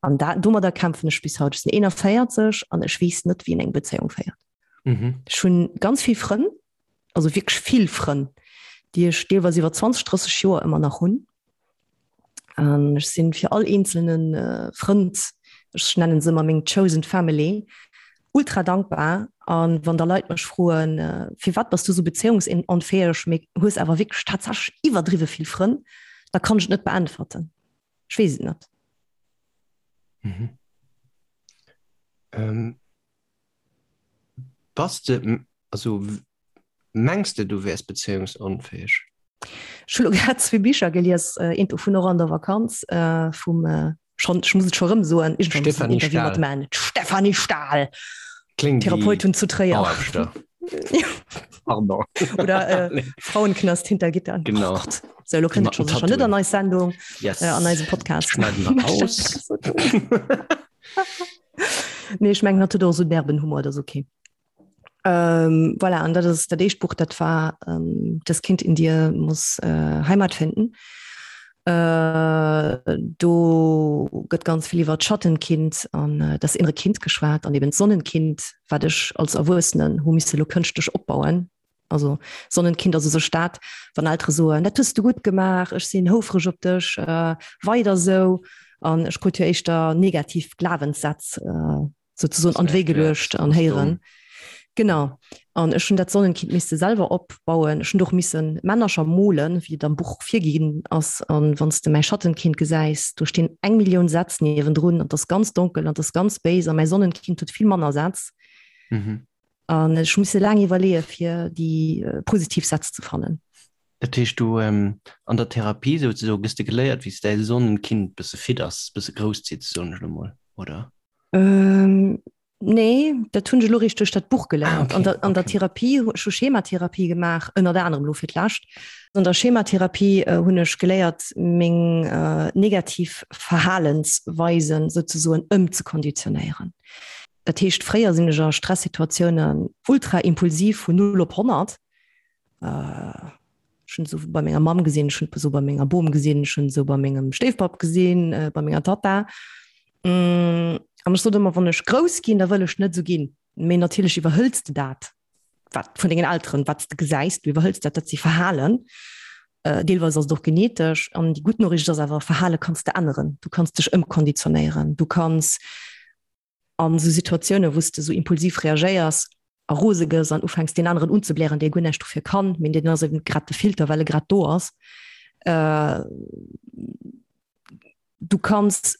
An dat, domadder kämpfen ech bis haut. Ech sinn 41 an ech weess net, wéi een eng Bezéiung féiert. Mhm. Ech hunn ganz vill Frënn, also wierklech vill Frënn, déi ech deelweis iwwer 20, 30 Joer ëmmer nach hunn. An ech sinn fir all eenzelne Frënd, ech nennen se ëmmer meng chosen family, ultra dankbar. An wann da Leit mech froen, firwat bass du sou bezéiungsunfäeg, mee hues awer wierklech tatsächlech iwwerdriwwe vill Frënn, da kann ech et net beäntwerten. Ech weess et net. Mhm. Ähm, bass de, also Mengs de du wäers bezéiungsunfäeg? Ech hu lo grad zwee Bicher gelies, eent dovun och an der Vakanz vum, schonn, ech muss et scho rëm soen, iergendwann muss en Stéphanie Interview mat Stahl. man, d'Stéphanie Stahl, Kléngt wéi Therapeutin zu Tréier. Bauaarbechter. Pardon. Oder äh, Frauenknast hinter Gittern. Genau. Oh Gott. So, lo Déi kënnt mat et scho den sécher net Tattooen. an eis Sendung, Yes. äh, an eise Podcast. Schneiden wir raus. Nee, ech mengen, hatt huet och esou derben Humor, dat ass okay. Ähm, voilà, an dat ass dat éischt Buch, dat war ähm, Das Kind in dir muss äh, Heimat finden. Äh, do gëtt ganz vill iwwer d'Schattenkind an äh, das innere Kind geschwat an eben d'Sonnenkind, wat ech als Erwuessenen hu misse lo kënschtlech opbauen. Also Sonnenkind ass u sech dat, wann Eltere soen, dat hues du gutt gemaach, ech sinn houfreg op dech, äh, weider sou. An ech krut jo éischter negativ Glawenssätz äh, sozusagen an d'Wéi geluecht an héieren. Genau. An ech hunn dat Sonnenkind misste selwer opbauen. Ech hunn och missen Männercher molen, wéi et am Buch virginn ass. An wann s de mäi Schattenkind gesäis, do stinn eng Millioun Sätz niewendrun an 't ass ganz donkel an 't ass ganz béis a mäi Sonnenkind huet vill manner Sätz. Mhm. An ech hu misse laang iwwerleeë fir déi positiv Sätz ze fannen. Dat heescht, du an der Therapie souzesoe gëss de geléiert, wéi s däi Sonnenkind bësse fidders, bësse grousszitt, soen ech elo mol, oder? Ähm, nee, dat hunn ech elo eréischt duerch dat Buch geléiert. Ah, okay, An der, an der okay. Therapie, ech hu Schematherapie gemaach, ënnert anerem elo fir d'lescht. An der Schematherapie äh, hunn ech geléiert, meng äh, negativ Verhalensweisen souzesoen ëmzekonditionéieren. Dat heescht, fréier sinn ech a Stressituatiounen ultra impulsiv vun 0 op 100. Äh, ech hunn esou bei menger Mamm gesinn, ech hunn esou bei menger Bom gesinn, ech hunn esou bei mengem Stéifpapp gesinn, äh, bei menger Tatta. Mm, an ech sot ëmmer, wann ech grouss ginn, da wëll ech net esou ginn. Mee natierlech iwwerhëls de dat, wat vun dengen Elteren, wat s de gesäis, du iwwerhëls dat, dat si Verhalen. Äh, deelweis ass et och genetesch. An déi gutt Noriicht ass awer, Verhale kanns de änneren. Du kanns dech ëmkonditionéieren. Du kanns an esou Situatiounen, wou s de esou impulsiv reagéiers a rose gëss an ufänks deen aneren unzeblären, dee guer näischt dofir kann, mee deen ass eben grad de Filter, well e grad do ass. Äh, du kanns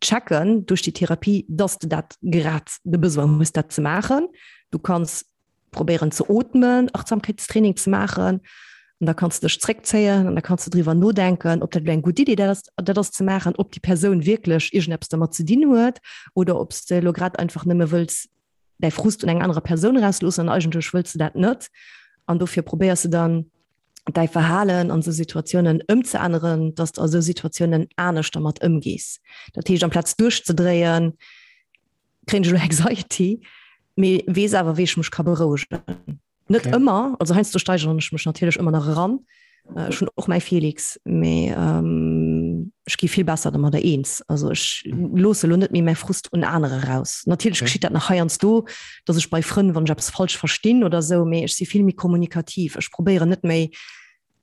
checken duerch déi Therapie, dass de dat grad de Besoin hues, dat ze maachen. Du kanns probéieren ze ootmen, Achtsamkeitstraining ze maachen an da kanns de dech zréckzéien an da kanns de driwwer nodenken, ob dat elo eng gutt Idee dat ass, dat ass ze maachen, ob déi Persoun wierklech iergendeppes dermat ze dinn huet oder ob s de elo grad einfach nëmme wëlls däi Frust un enger anerer Persoun erausloossen an eigentlech wëlls de dat net an dofir probéiers de dann däi Verhalen an esou Situatiounen ëmzeänneren, dass de a esou Situatiounen anescht dermat ëmgees. Dat heescht, amplaz duerchzedréien, kréien ech elo Anxiety. Mee weess awer, wéi ech mech ka berouegen. Net okay. ëmmer, also heiansdo steigeren ech mech natierlech ëmmer nach eran. Äh, ech hunn och mäi Felix, mee ähm, ech gi vill besser domadder eens. Also ech loosse lo net méi mäi Frust un anere raus. Natierlech okay. geschitt dat nach heiansdo, dass ech bei Frënn, wann ech eppes falsch verstinn oder sou, mee ech si vill méi kommunikativ. Ech probéieren net méi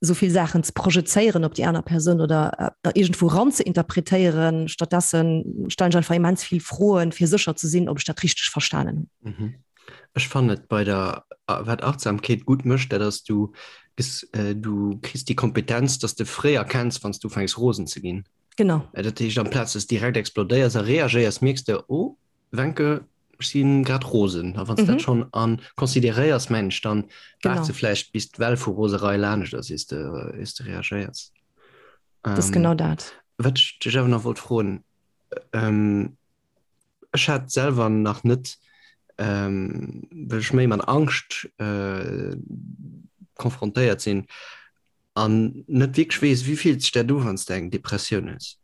sou vill Saachen ze projezéieren op déi aner Persoun oder äh, iergendwou ran ze interpretéieren. Stattdessen stellen ech einfach immens vill Froen, fir sécher ze sinn, ob ech dat richteg verstanen hunn. Mhm. Ech fannen et bei der wat Achtsamkeet gutt mécht, dat ass du du kriss déi Kompetenz, dass de fréi erkenns, wann s du ufänks rosen ze ginn. Genau. Dat heescht amplaz dass direkt explodéiers a reagéiers, mierks de, oh Wencke, ech si grad rosen. A wann s dat schonn a consideréiers, mengen ech, dann waarts de vläicht bis d'Well vu Roserei laanescht ass, iers de iers de reagéiers. Dat ass genau dat. Wat ech dech awer nach wollt froen, Ech hat selwer nach net, well ech méi mat Angscht konfrontéiert sinn an net wierklech weess, wéi fillt sech dat u wann s de eng Depressioun hues?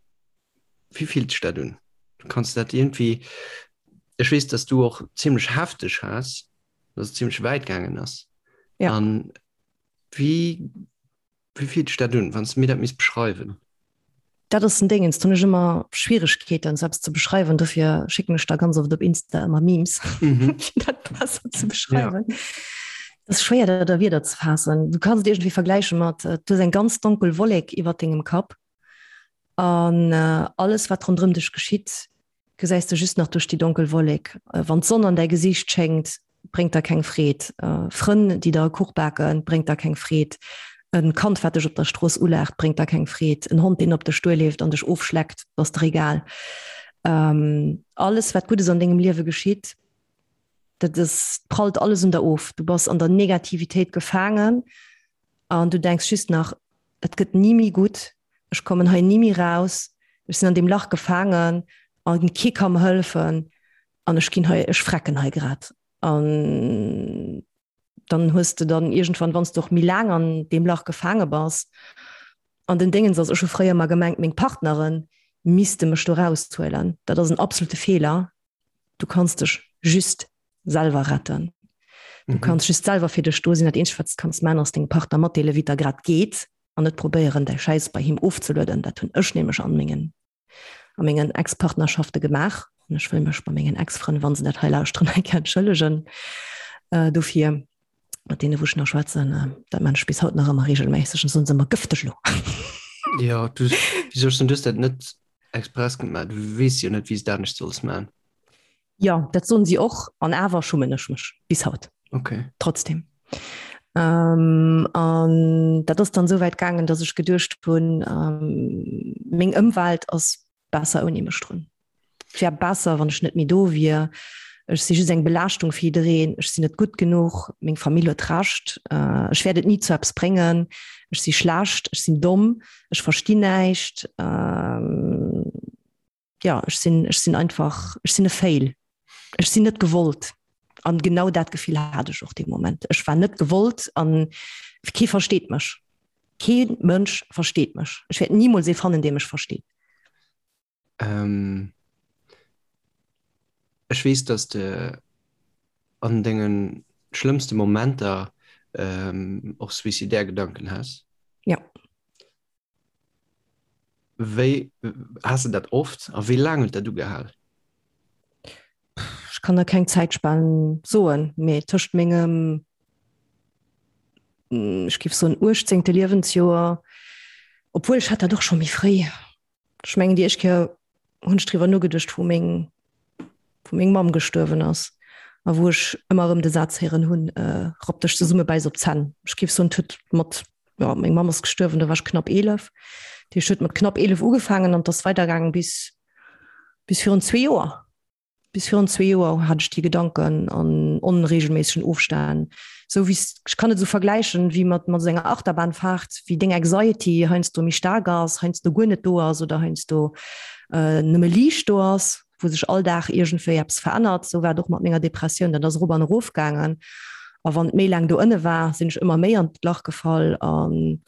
Wéi fillt sech dat un? Kanns de dat iergendwéi, ech weess, datt s du och zimmlech hefteg has, datt et zimmlech wäit gaangen ass. An wéi Wéi fillt sech dat un, wann s de mir dat misst beschreiwen? Dat ass en Déngens, do hunn ech ëmmer Schwieregkeeten, sou eppes ze beschreiwen. Dofir schécken ech der ganz oft op Insta ëmmer Memes, fir dat besser ze beschreiwen. Et ass schwéier, dat a Wierder ze faassen. Du kanns et iergendwéi vergläiche mat, du hues eng ganz donkel Wollek iwwer dengem Kapp an alles, wat ronderëm dech geschitt, gesäis de just nach duerch déi donkel Wollek. Wann d'Sonn an däi Gesiicht schéngt, bréngt der keng Freed. Frënn, déi der e Kuch baken, bréngt der keng Freed. E Kand, wat dech op der Strooss ulaacht, bréngt der keng Freed. En Hond, deen op dech duerleeft an dech ofschleckt, ass der egal. Alles, wat Guddes an dengem Liewe geschitt, dat ass, prallt alles un der of. Du bass an der Negativitéit gefaangen an du denks just nach, Et gëtt ni méi gutt, ech kommen hei ni méi raus, ech sinn an deem Lach gefaangen a kee ka mer hëllefen an ech ginn hei, ech frecken hei grad. An dann hues de dann iergendwann, wann s de och méi laang an deem Lach gefaange bass, an den Déngens ass, ech hu fréier ëmmer gemengt, meng Partnere misste mech do raushuelen. Dat ass en absolute Feeler. Du kanns dech just selwer retten. Du mhm. kanns just selwer fir dech do sinn. Dat eenzegt, wat du kanns man, ass dengem Partner matdeele, wéi et der grad geet an net probéieren, däi Schäiss bei him ofzelueden. Dat hunn ech nämlech an mengen a mengen Ex-Partnerschafte gemaach. An ech wëll mech bei mengen Ex-Frënn, wann se dat hei lauschteren, eng Kéier entschëllegen äh, dofir. Mat deene wou ech nach schwätzen, äh, dat man ech bis haut nach ëmmer regelméisseg an soen se ëmmer gëfteg lo. Ja, du, wieso hast du das net express gemaach? Du weess jo net, wéi s du dat anescht solls man. Jo, dat soen si och, an awer schummen ech mech bis haut. Okay. Trotzdem. Ähm, an dat ass dann esou wäit gaangen, datt ech geduecht hunn, ähm, meng Ëmwelt ass besser ouni mech drun. Et wär besser, wann ech net méi do wier. Ech si just eng Belaaschtung fir jiddereen. Ech sinn net gutt genuch. Meng Famill huet Recht. Äh, ech wäert et ni zu eppes bréngen. Ech si schlecht. Ech sinn domm. Ech verstinn näischt. Ähm, ja ech sinn ech sinn einfach ech sinn e Fail. Ech sinn net gewollt. An genau dat Gefill hat ech och dee Moment. Ech war net gewollt an kee versteet mech. Kee Mënsch versteet mech. Ech wäert nimools ee fannen, dee mech versteet. Ähm, ech weess, dass de an denge schlëmmste Momenter ähm, och suicidaire Gedanken has. Ja. Wéi has de dat oft a wéi laang huet dat ugehal? Ech kann der keng Zäitspan soen, mee tëscht mengem, ech géif soen, uechtzéngte Liewensjoer, obwuel ech hat dat och scho méi fréi, Ech mengen déi éischt Kéier hunn ech driwwer nogeduecht, wou meng, wou meng Mamm gestuerwen ass a wou ech ëmmer erëm de Saz héieren hunn, Rapp dech zesumme, bäiss op d'Zänn. Ech géif soen, et huet mat, jo, meng Mamm ass gestuerwen, do war ech knapp 11. Dat heescht, et huet mat knapp 11 ugefaangen an et ass weidergaangen bis, bis virun zwee Joer. Bis virun zwee Joer hat ech déi Gedanken an onregelméissegen Ofstänn. Sou wéi s, ech kann et esou vergläichen wéi mat mat esou enger Achterbahnfahrt, wéi deng Anxiety heiansdo méi staark ass, heiansdo guer net do ass oder heiansdo nëmme liicht do ass, wou sech all Dag iergendwéi eppes verännert. Sou war et och mat menger Depressioun, dat ass erop an erof gaangen. A wann et méi laang do ënne war, sinn ech ëmmer méi an d'Lach gefall. An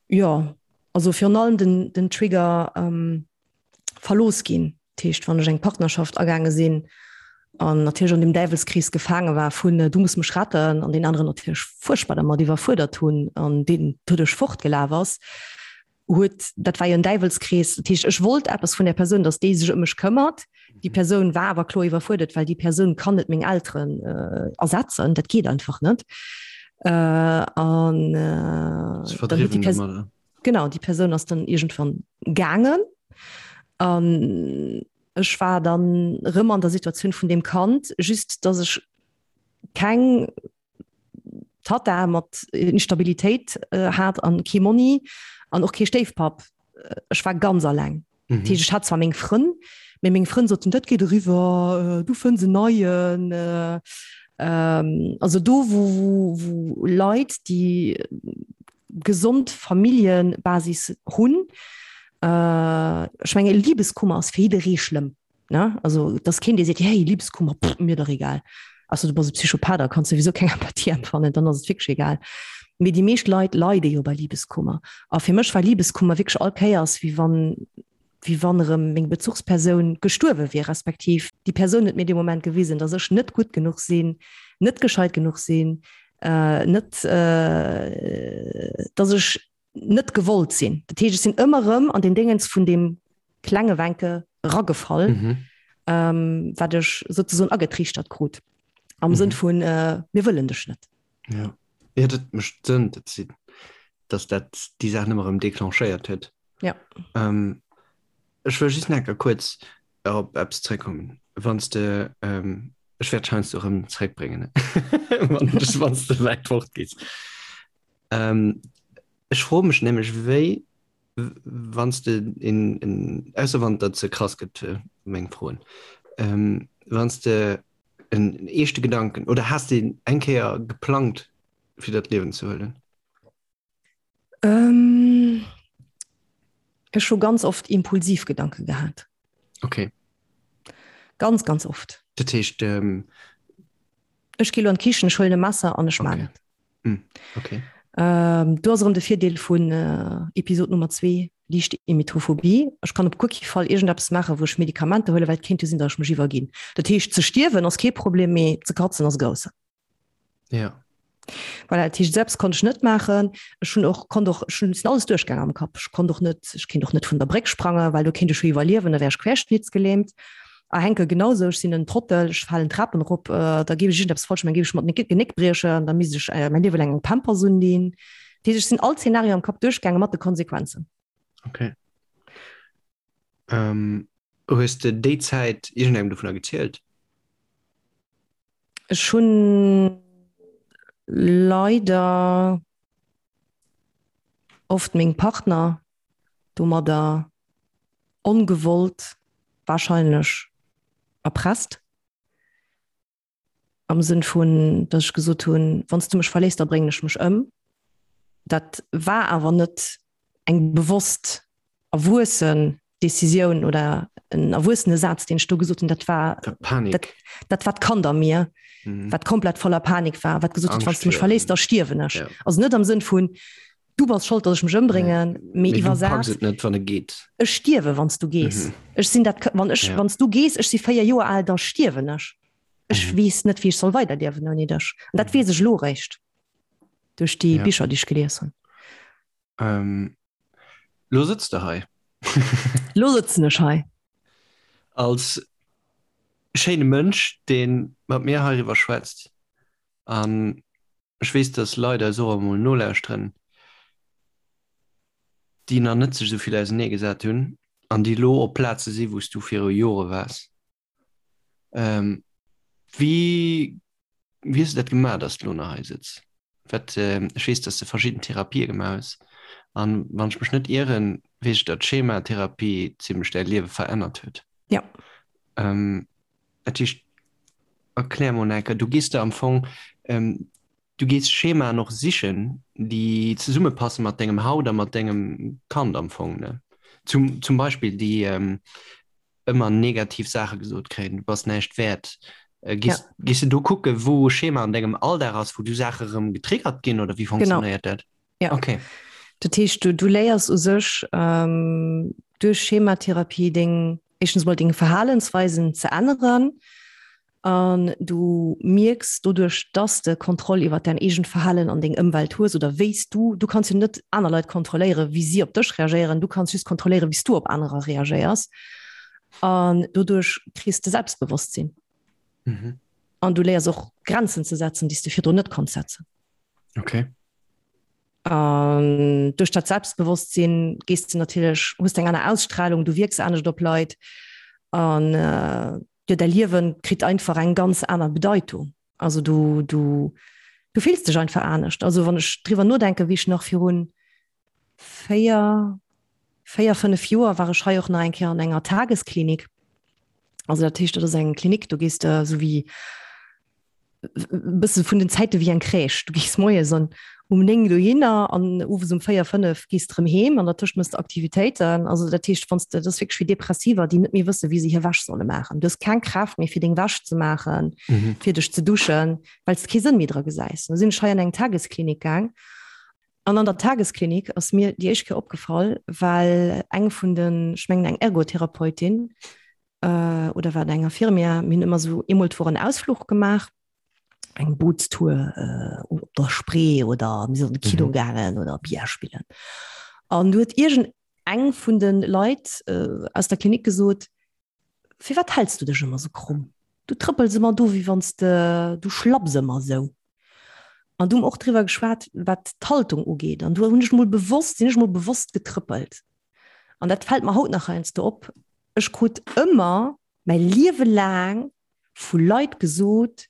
jo, also virun allem den den Trigger, verlooss ginn. Dat heescht, wann ech eng Partnerschaft agaange sinn. An natierlech an dem Däiwelskrees gefaange war vun du muss mech retten an deen aneren natierlech fuerchtbar dermat iwwerfuerdert hunn an deen doduerch fortgelaf ass, huet, dat war jo en Däiwelskrees. Dat heescht, ech wollt eppes vun där Persoun, datt déi sech ëm mech këmmert. Déi Persoun war awer kloer iwwerfuerdert, well déi Persoun kann net meng Elteren ersetzen, dat geet einfach net. An dann huet déi Persoun, genau, déi Persoun ass dann iergendwann gaangen an Ech war dann rëm an der Situatioun vun deem Kand, just dass ech keng Tatta mat Instabilitéit hat an kee Monni an och kee Stéifpapp. Ech war ganz alleng. Mhm. Dat heescht, ech hat zwar meng Frënn, mee meng Frënn soten, dat geet eriwwer, du fënns en neien. Also do wou wou Leit, déi gesond Familljebasis hunn. Ech menge Libeskummer ass fir jidderee schlëmm, ne? Also et ass keen, dee seet, hey Libeskummer, pff, mir dach egal. Ausser du bass e Psychopath, da kanns souwisou keng Empathie empfannen, dann ass et wierklech egal. Mee déi meescht Leit leide jo bei Libeskummer. A fir mech war Libeskummer wierklech all Kéiers, wéi wann wéi wann erëm meng Bezuchspersoun gestuerwe wier, respektiv déi Persoun huet mir dee Moment gewisen, datt ech net gutt genuch sinn, net gescheit genuch sinn, net, datt ech net gewollt sinn. Dat heescht, ech sinn ëmmer erëm an deen Déngens vun deem klenge Wencke ragefall, wat ech souzesoen agetriichtert krut, am Sënn vun, mir wëllen dech net. Ja, ja dat mécht Sënn, dat si, dass dat déi Saach ëmmer erëm declenchéiert huet. Ja. Ähm, ech wëll just nach enker kuerz op eppes zréckkommen. Wann s de, ähm, ech wäert heiansdo erëm zréckbréngen, wann du wann s de wäit fort gees. Ähm, ech froe mech nämlech, wéi, wann s de en, en, ausser wann dat ze krass gëtt, meng Froen, ähm, wann s de en eeschte Gedanken oder has de eng Kéier geplangt fir dat Liewen ze huelen? Ähm, ech hu ganz oft impulsiv Gedanke gehat. Okay. Ganz ganz oft. Dat heescht ähm... Ech gi lo an d'Kichen, ech huelen e Messer an ech okay. man et. Mm, okay. Ähm, do ass erëm de Virdeel vun äh, Episod Nummer 2, liicht Emetophobie. Ech kann op guer kee Fall iergendeppes maachen, wou ech Medikamenter huelen, well et kéint jo sinn, datt ech mech iwwerginn. Dat heescht, ze stierwen ass kee Problem, mee ze katzen ass e groussen. Ja. Voilà, dat heescht, selbst konnt ech net maachen. Ech hunn och, konnt och, ech hunn, sinn alles duerchgaangen am Kapp. Ech konnt och net, ech kéint och net vun der Bréck sprangen, well do kéint ech jo iwwerliewen, da wär ech querschnittsgelähmt. A Henke genau sou, ech sinn en Trottel, ech falen d'Trapen erop, da géif ech iergendeppes falsch maachen, géif ech mer d'Genéck briechen, da misst ech mäin Liewe laang eng Pampers undinn. Dat heescht, ech sinn all Zeenario am Kapp duerchgaangen mat de Konsequenzen. Okay. Ähm, hues de déi Zäit iergendengem dovunner gezielt? Ech hunn leider oft meng Partner domadder ongewollt wahrscheinlech erpresst. Am Sënn vun, datt ech gesot hunn, wann s du mech verléiss, da bréngen ech mech ëm. Dat war awer net eng bewosst erwuessen Decisioun oder en erwuessene Saz, deen ech do gesot hunn. Dat war Panik. Dat, dat war d'Kand a mir, mhm. wat komplett voller Panik war, wat gesot huet, wann s du mech verléiss, da stierwen ech. Ja. Also net am Sënn vun, du bass schold, datt ech mech ëmbréngen, mee iwwersat, et net, wann e geet. Ech stierwe wann s du gees. Mhm. Ech sinn dat, wann ech, ja. wann s du gees, ech si 4 Joer al, da stierwen ech. Ech mhm. weess net, wéi ech soll weiderliewen ouni dech. An dat mhm. weess ech lo réischt duerch déi ja. Bicher, déi ech gelies hunn. Ähm, lo sëtz de hei. Lo sëtzen ech hei. Als schéine Mënsch, dee mat mir heiriwwer schwätzt. An ech weess, dass Leit eis och emol nolauschteren, déi nach net sech esou vill ausenee gesat hunn an déi elo op Plaze si wou s du viru Jore waars. Wéi wéi hues du dat gemaach, dass du elo nach hei sëtz? Wat, ech weess, dass de verschidden Therapië gemaach hues an wann ech mech net ieren, weess ech, datt d'Schematherapie zimmlech däi Liewe verännert huet. Ja. Dat heescht, erklär mol enker, du gees der am Fong, du gees Schemaen och sichen, déi zesummepasse mat dengem Haut a mat dengem Kand am Fong, ne? Zum, zum Beispill déi ëmmer negativ Saache gesot kréien, du bass näischt wäert. Gees, ja. gees du do kucke, wou e Schema an dengem Alldag ass, wou du Saache rëm getriggert ginn oder wéi funktionéiert dat? Ja. Okay. Dat heescht, du, du léiers u sech ähm, duerch Schematherapie deng, éischtens mol deng Verhalensweisen ze änneren. An du mierks doduerch, dass de Kontroll iwwer däin eegent Verhalen an deng Ëmwelt hues oder wéi s du, du kanns jo net aner Leit kontrolléieren, wéi si op dech reagéieren, du kanns just kontrolléieren, wéi s du op anerer reagéiers. An doduerch kriss de Selbstbewosstsinn. Mhm. An du léiers och Grenzen ze setzen, déi s de virdrun net konns setzen. Okay. An duerch dat Selbstbewosstsinn gees de natierlech, hues de eng aner Ausstrahlung, du wierks anescht op Leit an jo däi Liewen kritt einfach eng ganz aner Bedeitung. Also du, du, du fills dech einfach anescht. Also wann ech driwwer nodenken, wéi ech nach virun 4, 4, 5 Joer war ech hei och nach eng Kéier an enger Tagesklinik. Also dat heescht, dat ass eng Klinik, do gees de esou wéi bësse vun den Zäite wéi eng Crèche. Du gees moies an um 9 dohinner an owes um 4, 5 gees de rëm heem an dertëscht mëss de Aktivitéiten. Also dat heescht, wann s de, dat ass wierklech wéi Depressiver, déi net méi wësse wéi se hir Wäsch solle maachen. Du hues keng Kraaft méi fir deng Wäsch ze maachen, fir dech ze duschen, well s de kee Sënn méi dra gesäis. Du sinn ech hei an eng Tagesklinik gaang an an der Tagesklinik ass mir déi éischt Kéier opgefall, well eng vun den, ech mengen eng Ergotherapeutin, äh, oder war eng Infirmière, mir hunn ëmmer sou eemol d'Woch en Ausfluch gemaach, eng Bootstour äh, op der Spree oder mir sinn an de Kino mhm. gaangen oder Billard spillen. An du huet irgend eng vun den Leit äh, aus der Klinik gesot, firwat hältst du dech ëmmer so krumm? Du trëppels ëmmer do, wéi wann de du schlapps ëmmer sou. An du hunn och driwwer geschwat, wat d'Haltung ugeet. An du hunn ech mol bewosst, sinn ech mol bewosst getrëppelt. An dat fält mer haut nach heiansdo op, ech krut ëmmer mäi Liewe laang vu Leit gesot,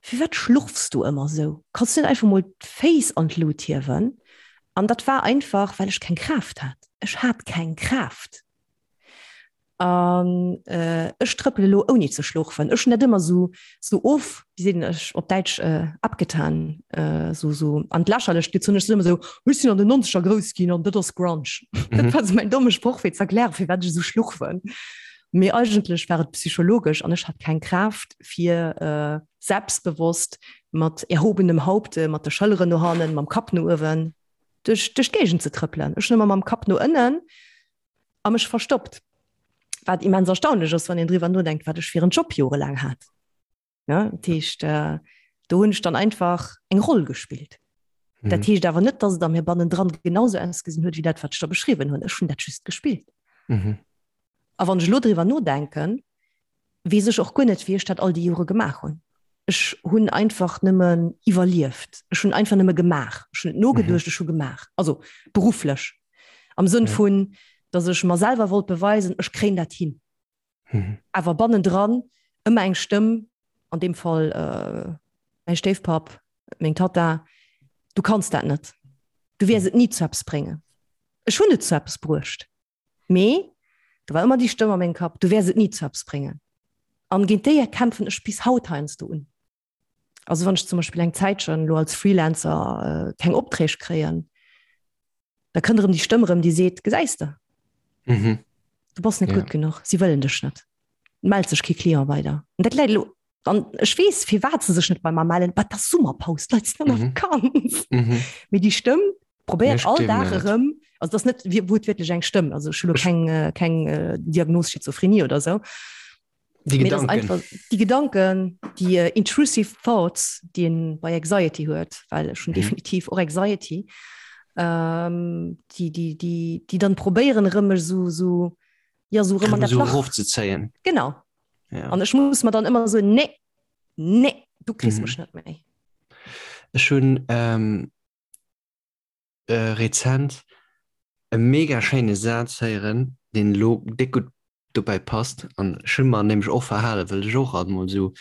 Firwat schlurfs du ëmmer esou? Kanns du net einfach mol d'Féiss an d'Lut hiewen? An dat war einfach, well ech keng Kraaft hat. Ech hat keng Kraaft. An ech trëppele elo ouni ze schlurfen. Ech hunn dat ëmmer esou, esou of, wéi seet een ech op Däitsch, abgetan, esou, esou an d'Lächerlecht gezunn. Ech sinn ëmmer esou, ech sinn an den Nonzeger grouss ginn an dat ass Grunge. Dat war esou mäin domme Sproch fir ze erklären, firwat ech esou schlurfen. Mee eigentlech war et psychologesch an ech hat keng Kraaft fir selbstbewosst mat erhobenem Haupte, mat de Schëlleren no hannen, mam Kapp no uewen duerch, duerch d'Géigend ze trëppelen. Ech hunn ëmmer mam Kapp no ënnen a mech verstoppt. Wat immens erstaunlech ass, wann een driwwer nodenkt, wat ech fir en Job jorelaang hat. Ja, dat heescht, äh, do hunn ech dann einfach eng Roll gespillt. Mhm. Dat heescht awer net, dass et a mir bannendran genauso ausgesinn huet, wéi dat, wat ech da beschriwwen hunn. Ech hunn dat just gespillt. Mhm. A wann ech elo driwwer nodenken, weess ech och guer net, wéi ech dat all déi Jore gemaach hunn. Ech hunn einfach nëmmen iwwerlieft. Ech hunn einfach nëmme gemaach. Ech hunn net nogeduecht, ech hu gemaach. Also berufflech. Am Sënn vun, datt ech mer selwer wollt beweisen, ech kréien dat hin. Awer bannendran ëmmer eng Stëmm, an deem Fall mäi Stéifpapp, meng Tatta, Du kanns dat net. Du wäers et ni zu eppes bréngen. Ech hunn et zu eppes bruecht. Mee do war ëmmer déi Stëmm a mengem Kapp, du wäers et ni zu eppes bréngen. An géint déi kämpfen ech bis haut heiansdo un. Also wann ech zum Beispill eng Zäitchen elo als Freelancer keng Opträg kréien, da kënnt erëm déi Stëmm erëm, déi seet, gesäis de, mhm. du bass net ja. gutt genuch, si wëllen dech net. Mellt sech kee Client weider. An dat läit elo an ech weess, firwat se sech net bei mer mellen, wat ass Summerpaus, d'Leit sinn an der mhm. Vakanz. Mhm. Mee déi Stëmm probéiert all Dag erëm, also das net wuertwiertlech eng Stëmm, also ech hunn elo keng, äh, keng äh, Diagnos Schizophrenie oder sou. Déi Gedanken. Einfach, déi Gedanken, déi äh, intrusive thoughts, déi een bei Anxiety huet, well ech hunn mhm. definitiv och Anxiety, ähm, déi, déi, déi, déi dann probéieren erëm mech so, so, ja, so erëm an dat Lach erofzezéien. Genau. Ja. An ech muss mer dann ëmmer so, nee, nee, du kriss mhm. mech net méi. Ech hunn ähm, äh, rezent e mega schéine Saz héieren, deen elo déck gutt dobäi passt. An ech hu mer nämlech och verhalen, well ech och alt mol esou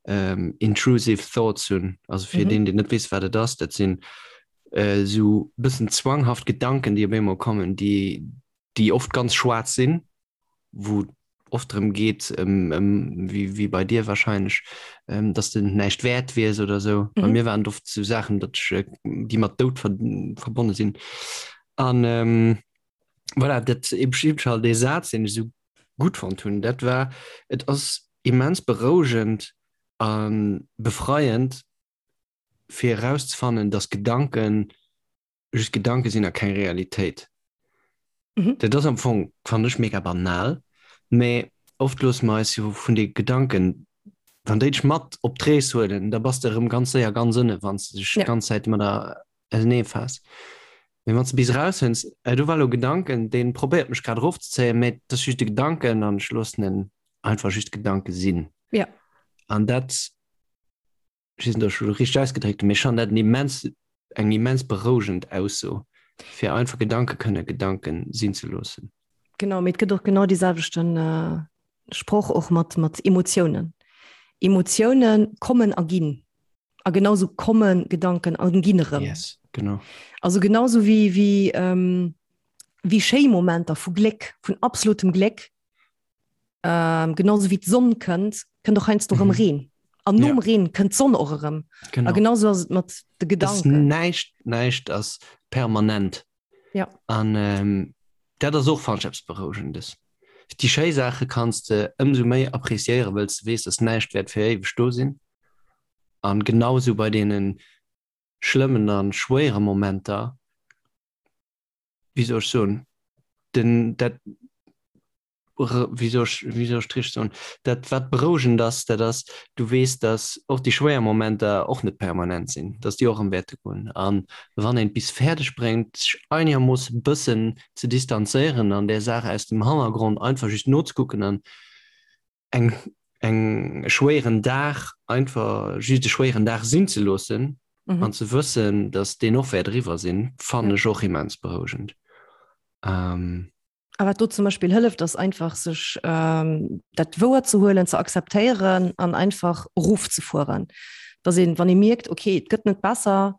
ähm, intrusive thoughts hunn. Also fir mhm. deen, deen net weess, wat et ass, dat sinn äh, sou bëssen zwanghaft Gedanken, déi op eemol kommen, déi, déi oft ganz schwaarz sinn, wou oft drëm geet, ëm, ëm, wéi, wéi bei dir wahrscheinlech, ähm, dass de näischt wäert wiers oder sou. Bei mhm. mir waren et oft sou Saachen, datt ech, äh, déi mat Doud ver verbonne sinn. An ähm, voilà, dat eben halt dee Saz, deen ech sou gutt fonnt hunn, dat war, et ass immens berouegend a befreiend, fir erauszefannen, dass Gedanken just Gedanke sinn a keng Realitéit. Mhm. Dat ass am Fong, fannen ech, mega banal, mä oft loosse mer eis jo vun de Gedanken. Wann déi dech mat op d'Rees huelen, da bass de erëm ganz séier ganz ënne wann s de dech Ja. d'ganz Zäit mat der ausenee faass. Mee wann s de bis eraushënns, äh, do war elo e Gedanken, dee probéiert mech grad erofzezéien, mee et ass just e Gedanken an ech loossen en einfach just Gedanke sinn. Ja. An dat, ech weess net, ob ech elo richteg ausgedréckt hunn, mee ech fannen dat en immens, eng immens berouegend Ausso, fir einfach Gedanke kënne Gedanke sinn ze loossen. Genau, mee et gëtt och genau dee selwechten Sproch och mat, mat Emotiounen. Emotiounen kommen a ginn. A genauso komme Gedanken an ginn erëm. Yes, genau. Also genauso wéi, wéi, ähm, wéi schéi Momenter vu Gléck, vun absolutem Gléck, ähm, genauso wéi d'Sonn kënnt, kënnt och heiansdo erëm Mhm. Reen. An nom Ja. Reen kënnt d'Sonn och erëm. A Genau. genauso ass et mat de Ass Gedanken. näischt, näischt ass permanent. Ja. An ähm, dat ass och fannen ech eppes Berouegendes. Déi schéi Saache kanns de ëmsou méi appreciéieren, wëlls de weess, dass näischt wäert fir éiweg do sinn. An genausou bei deene schlëmmen a schwéiere Momenter, wéi soll ech soen, den, dat, wéi soll ech, wéi soll ech et richteg soen, dat wat berouegend ass, dat ass, du weess, datt och déi schwéier Momenter och net permanent sinn, datt déi och erëm wäerte goen. An wann een et bis fäerdeg bréngt, sech einegermoosse bëssen ze distanzéieren an där Saach aus dem Hannergrond einfach just nozekucken an eng, eng e schwéieren Dag einfach just e schwéieren Dag sinn ze loossen an ze wëssen, datt deen och wäert eriwwer sinn, fannen ech och immens berouegend. A wat do zum Beispill hëlleft, ass einfach sech ähm, dat wouer ze huelen, ze akzeptéieren an einfach erofzefueren. Dass een, wann ee mierkt, okay, et gëtt net besser,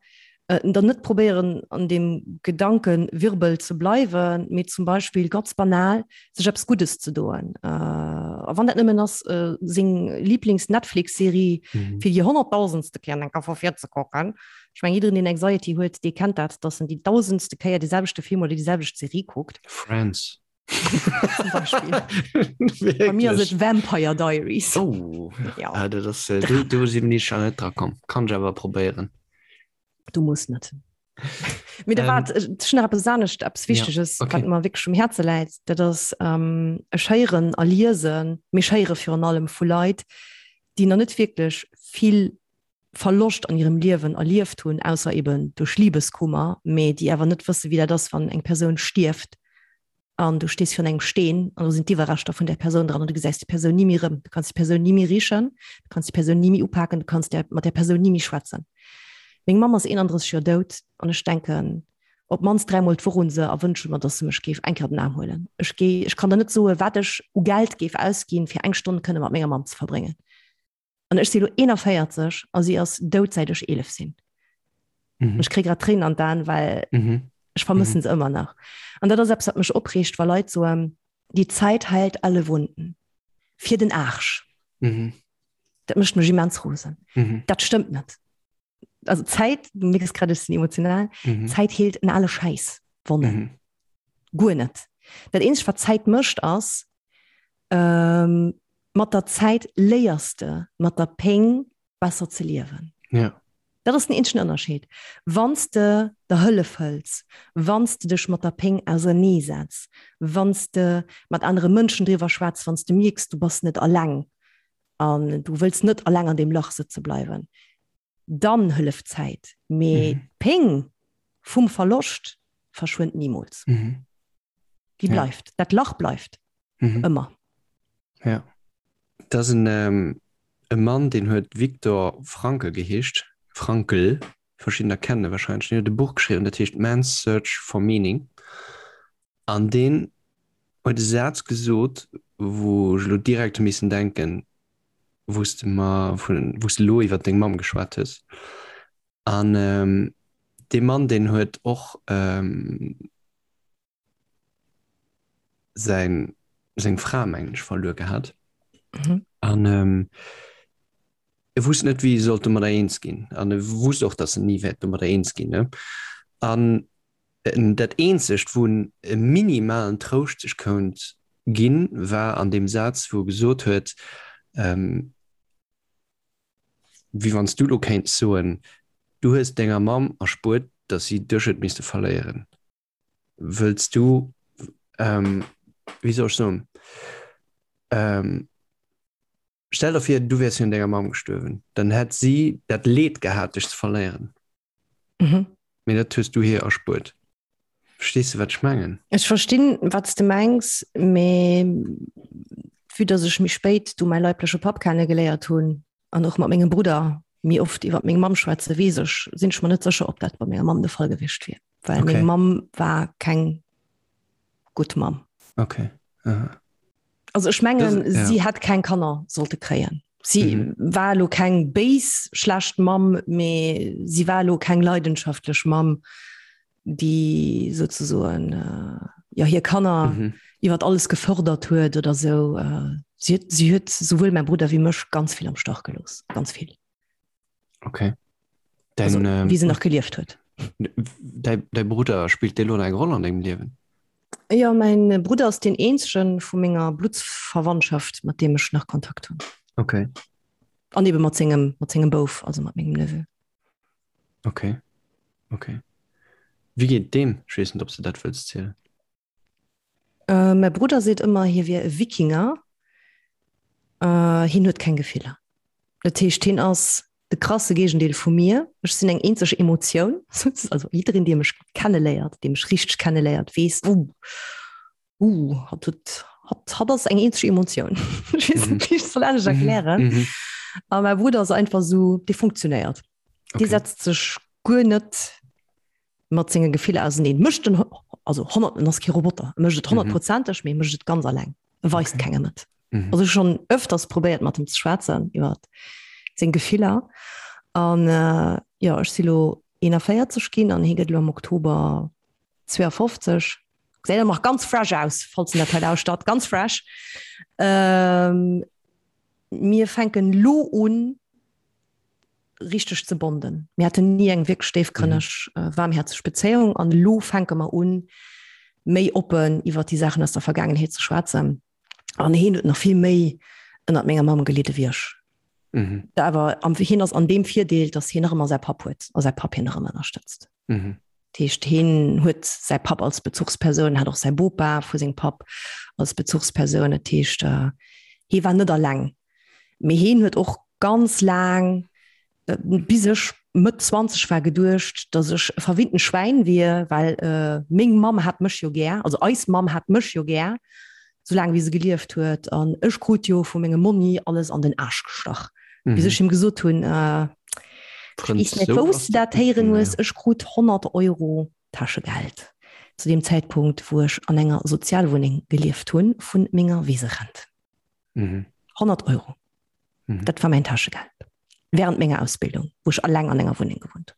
äh, dann net probéieren an dem Gedankenwirbel ze bleiwen, mee zum Beispill ganz banal sech eppes Guddes ze doen. Äh, a wann dat nëmmen ass, äh, seng Lieblings-Netflix-Serie mhm. fir déi honnertdausendste Kéier eng Kéier vu vir ze kucken. Ech mengen, jiddereen, deen Anxiety huet, dee kennt dat, dass en déi dausendste Kéier dee selwechte Film oder déi selwecht Serie kuckt. Friends. Zum Beispill. Bei mir ass et Vampire Diaries. Oh, ja. Ah, dat ass, äh, do, do sinn ech nach net dra komm. Kann ech awer probéieren. Du muss net. Mee da Ähm, waart, ech hunn nach eppes anescht, eppes Wichteges, ja, okay. wat mer wierklech um Häerze läit. Dat ass, ähm, ech héieren a liesen, mee ech héiere virun allem vu Leit, déi nach net wierklech vill Verloscht an hirem Liewen erlieft hunn, ausser eben duerch Libeskummer, mee déi awer net wësse wéi dat ass, wann eng Persoun stierft an du stees virun engem Steen an do sinn d'Iwwerreschter vun där Persoun dran an du gesäis déi Persoun ni méi erëm. Du kanns déi Persoun ni méi richen, du kanns déi Persoun ni méi upaken, du kanns där, mat där Persoun ni méi schwätzen. Meng Mamm ass 31 Joer dout an ech denken op d'mannst dräimol d'Woch un se a wënsche mer, dass se mech géif eng Kéier op den Aarm huelen. Ech géi, ech kann der net soen, wat ech u Geld géif ausginn, fir eng Stonn kënne mat menger Mamm ze verbréngen. An ech si lo 41 a si ass dout säit ech 11 sinn. Mhm. Ech kritt grad Tréinen an d'Aen, well mhm. ech vermëssen mhm. se ëmmer nach. An dat ass eppes, wat mech opreegt, wa Leit soen, die Zeit heilt alle Wunden. Fir den Arsch. Mhm. Dat mécht mech immens rosen. Mhm. Dat stëmmt net. Also Zäit, du mierks grad, ech sinn emotional, mhm. Zäit heelt en alle Schäiss Wonnen. Mhm. Guer net. Dat eenzegt, wat Zäit mécht, ass, ähm, mat der Zäit léiers de mat der Péng besser ze liewen. Ja. Dat ass den eenzegen Ënnerscheed. Wann s de der Hëllef hëls, wann s de dech mat der Péng auserneesetz, wann s de mat anere Mënschen driwwer schwätz, wann s de mierks, du bass net alleng an du wëlls net alleng an deem Lach sëtze bleiwen, dann hëlleft d'Zäit. Mee Mhm. d'Péng vum Verloscht verschwënnt nimools. Mhm. Déi Ja. bleift. Dat Lach bleift. Mhm. Ëmmer. Ja. Dat ass en, ähm, e Mann, deen huet Viktor Frankl geheescht, Frankl, verschiddener kennen e wahrscheinlech, deen huet e Buch geschriwwen, dat heescht Man's Search for Meaning. An deen huet e Saz gesot, wou ech elo direkt hu missen denken, wou s de mer vun, wou s de elo iwwer deng Mamm geschwat hues. An dee Mann, deen huet och säin, seng Fra, mengen ech, verluer gehat. An e wusst net, wéi e sollt domadder eens ginn. An e wusst och, datt en ni wäert domadder eens ginn, ne? An dat eenzegt, wou en e minimalen Trouscht sech kount ginn, war an deem Saz, wou e gesot huet, Wéi wann s du elo kéints soen, du hues denger Mamm erspuert, datt si dech huet misste verléieren. Wëlls du, wéi soll ech soen? Stell der vir, du wäers virun denger Mamm gestuerwen, dann hätt si dat Leed gehat, dech ze verléieren. Mhm. Mee dat hues du hir erspuert. Verstees de, wat ech mengen? Ech verstinn, wat s de mengs, mee vue dass ech méi spéit du mäi leibleche Papp kennegeléiert hunn an och mat mengem Brudder méi oft iwwer meng Mamm schwätze, weess ech, sinn ech mer net sécher, ob dat bei menger Mamm de Fall gewiescht wier. Well Okay. meng Mamm war keng gutt Mamm. Okay. Aha. Also ech mengen, Das, ja. si hätt keng Kanner sollte kréien. Si Mhm. war elo keng béis, schlecht Mamm, mee si war elo keng leidenschaftlech Mamm, déi souzesoen äh, ja, hir Kanner Mhm. iwwer alles gefërdert huet oder sou. Äh, si huet, si huet souwuel mäi Brudder wéi mech ganz vill am Stach gelooss. Ganz vill. Okay. Dein, Also, ähm, wéi se nach gelieft huet. Däi, däi Brudder spillt dee lo eng Roll an dengem Liewen? Jo, mäin Brudder ass deen eenzege vu menger Bluttsverwandtschaft, mat deem ech nach Kontakt hunn. Okay. An ebe mat sengem, mat sengem Bouf, also mat mengem Neveu. Okay. Okay. Wéi geet deem? Ech weess net, ob s de dat wëlls zielen. Äh, mäi Brudder seet ëmmer, hie wier e Wikinger. Äh, hien huet keng Gefiller. Dat heescht, hien ass de krasse Géigendeel vu mir. Ech sinn eng eenzeg Emotioun. Also jiddereen, dee mech kenneléiert, dee mech richteg kenneléiert, weess, uh, uh, hatt huet, hatt, hatt ass eng eenzeg Emotioun. Ech weess net, wéi ech et soll anescht erklären. Mhm. A mäi Brudder ass einfach esou, dee funktionéiert. Dee Okay. setzt sech guer net mat senge Gefiller auseneen. Mécht en, also 100, en ass kee Roboter, e mécht et honnertprozenteg, mee e mécht et ganz alleng. E weist Okay. kengem et. Mhm. Also ech schonn öfters probéiert mat em ze schwätzen iwwer seng Gefiller. An äh, jo, ech si lo 41 ginn an hie gëtt lo am Oktober 52. Gesäit awer nach ganz fresh aus, falls en dat hei lauschtert, ganz fresh. Ähm, mir fänken lo un, richteg ze bonden. Mir haten ni eng wierklech déifgrënneg, mhm. waarmhäerzeg Bezéiung an elo fänke mer un, méi oppen iwwer déi Saachen aus der Vergaangenheet ze schwätzen. An hien huet nach vill méi ënnert menger Mamm gelidde wéi ech. Mhm. Awer am hien ass an deem Virdeel, datt hien nach ëmmer säi Papp huet a säi Papp hien nach ëmmer ënnerstëtzt. Mhm. Dat heescht, hien huet säi Papp als Bezuchspersoun, hat och säi Bopa vu sengem Papp als Bezuchspersoun. Dat heescht, äh, hie war net alleng. Mee hien huet och ganz laang, bis ech Mëtt 20 war, geduecht, datt ech e verwinnten Schwäin wier, well meng Mamm hat mech jo gär, also eis Mamm hat mech jo gär, soulaang wéi se gelieft huet, an ech krut jo vu mengem Monni alles an den Aarsch gestach. Bis ech him gesot hunn, ech weess net, wou s de dat héieren hues, ech krut 100 Euro Täschegeld zu deem Zäitpunkt, wou ech an enger Sozialwunneng gelieft hunn, vu menger Weserent. Mhm. 100 Euro. Mhm. Dat war mäin Täschegeld. Während menger Ausbildung, wou ech alleng an enger Wunneng gewunnt.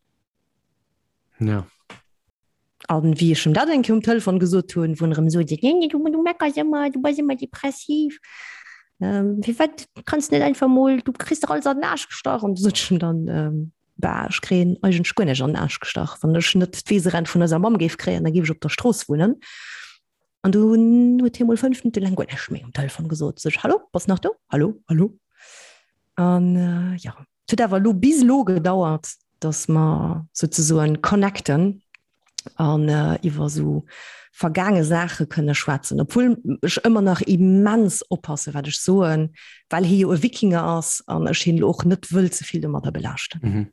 Ja. An wéi ech em dat eng Kéier um Telefon gesot hunn, wou en erëm sot, nee, nee, du, du meckers ëmmer, du bass ëmmer depressiv. Ähm, firwat kanns net einfach mol, du kriss dach alles an den Aarsch gestach. An du sot ech em dann, ähm, bah, ech kréien eigentlech guer näischt an den Aarsch gestach. Wann ech net d'Weeserent vun eiser Mamm géif kréien, da géif ech op der Strooss wunnen. An dunn huet hie mol 5 Minutte laang guer näischt méi um Telefon gesot. Sot ech, Hallo, bass nach do? Hallo, hallo? An äh, ja, et huet awer elo bis elo gedauert, dass mer souzesoen connecten an äh, iwwer sou vergaange Saache kënne schwätzen, obwuel ech ëmmer nach immens oppasse wat ech soen, well hie jo e Wikinger ass an ech hien elo och net wëll ze vill domadder belaaschten. Mhm.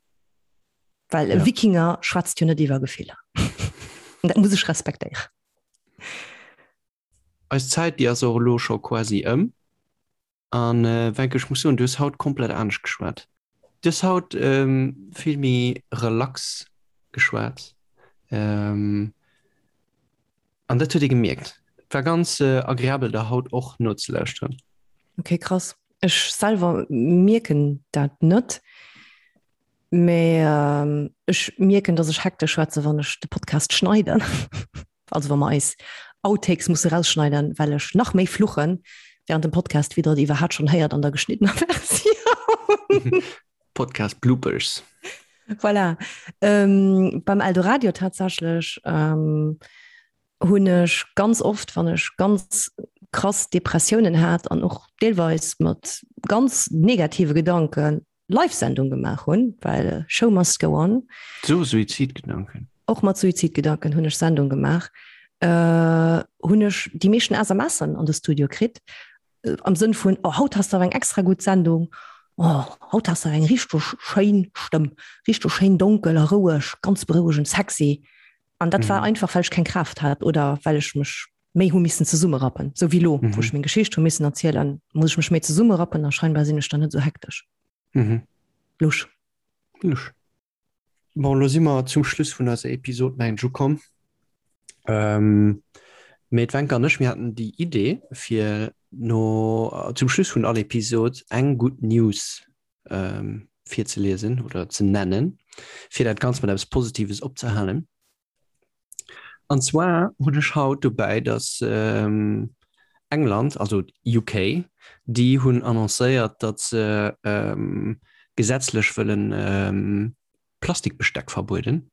Well e Ja. Wikinger schwätzt jo net iwwer Gefiller. An dat muss ech respektéieren. Eis Zäit, déi ass och elo scho quasi ëm. An Wencke, ech muss soen, du hues haut komplett anescht geschwat. Du hues haut vill méi relax geschwat. An dat huet ee gemierkt. Et war ganz agreabel, der haut och nozelauschteren. Okay, krass. Ech selwer mierken dat net. Mee ech mierken, dass ech hektesch schwätze wann ech de Podcast schneiden. Also wa mer eis Outtakes musse rausschneiden, well ech nach méi fluchen während dem Podcast, wéi der et iwwerhaapt schonn héiert an der geschniddener Versioun. Podcast Bloopers. Voilà. Ähm, beim Eldoradio tatsächlech ähm, hunn ech ganz oft, wann ech ganz krass Depressiounen hat an och deelweis mat ganz negative Gedanken, Live-Sendung gemaach hunn, well Show must go on. So Suizidgedanken? Och mat Suizidgedanken hunn ech Sendung gemaach. Hunn ech déi meeschten SMSen an de Studio kritt. Am Sënn vun, oh haut has de awer eng extra gutt Sendung, oh haut has de awer eng richteg schéin Stëmm, richteg schéin donkel a roueg, ganz berouegend, sexy. An dat war einfach, well ech keng Kraaft hat oder well ech mech méi hu missen zesummerappen. Sou wéi elo, wou ech meng Geschicht hu missen erzielen, muss ech mech méi zesummerappen a scheinbar sinn ech dann net sou hektesch. Lusch. Lusch. Bon, lo si mer zum Schluss vun eiser Episod mengen ech ukomm. Ähm, mee d'Wencke an ech, mir haten déi Idee, fir no zum Schluss vun all Episod eng gutt News ähm, virzeliesen oder ze nennen, fir dat Ganzt mat eppes Positives opzehalen. An zwar hunn ech haut dobäi, datt England, also UK, déi hunn annoncéiert, datt se gesetzlech wëllen Plastikbesteck verbueden.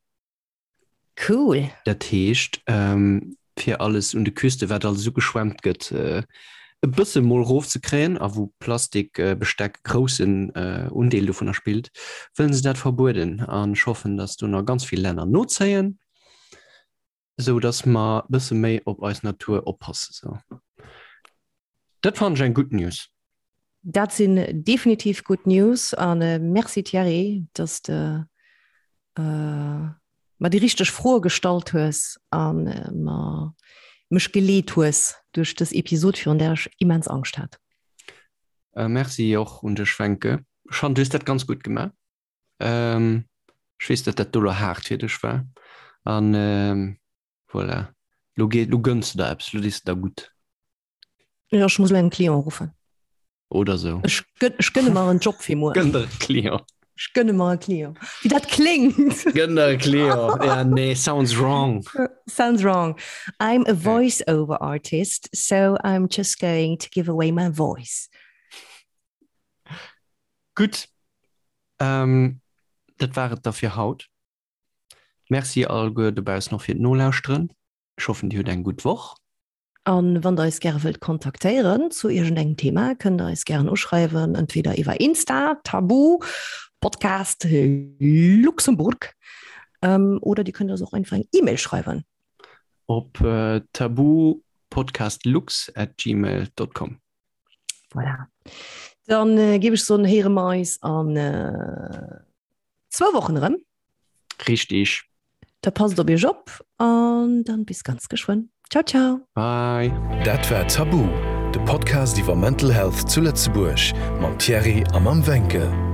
Cool. Dat heescht, fir alles un de Küste, wat alles ugeschwemmt gëtt, e bësse mol rofzekréien a wou Plastikbesteck e groussen Undeel dovunner spillt, wëllen se dat verbueden. An ech hoffen, datt do nach ganz vill Länner nozéien, esou datt mer e bësse méi op eis Natur oppasse. Sou, dat fannen ech eng gutt News. Dat sinn definitiv gutt News a Merci Thierry, datt de mer déi richteg Froe gestallt hues a mer mech geleet hues duerch dës Episod, virun där ech immens Angscht hat. Merci och un dech Wencke. Ech fannen du hues dat ganz gutt gemaach. Ech weess, datt dat do lo haart fir dech war an voilà, lo geet, lo gënns de der eppes, lo dees de der gutt. Jo, ech muss lo engem Client ruffen. Oder sou. Ech gënn, ech gënne mer en Job fir muer. Gënn der e Client. Ech gënne mer e Client. Wéi dat kléngt. Gënn der e Client. Ja, nee, sounds wrong. Sounds wrong. I'm a voice-over artist, so I'm just going to give away my voice. Gutt. Ähm, dat war et da fir haut. Merci alleguer dobaussen och fir d'Nolauschteren. Ech hoffen, Dir hutt eng gutt Woch. An wann der eis gäre wëllt kontaktéieren zu iergendengem Thema, kënnt der eis gären uschreiwen, entweder iwwer Insta, Tabu Podcast Luxembourg, oder dir kënnt eis och einfach eng E-Mail schreiwen. Op tabupodcastlux at gmail dot com. Voilà. Dann géif ech soen, héiere mer eis an zwou Wochen erëm. Richtig. Da passt op iech op an dann bis ganz geschwënn. Ciao ciao. Bye. Dat war Tabu, de Podcast iwwer Mental Health zu Lëtzebuerg mam Thierry a mam Wencke.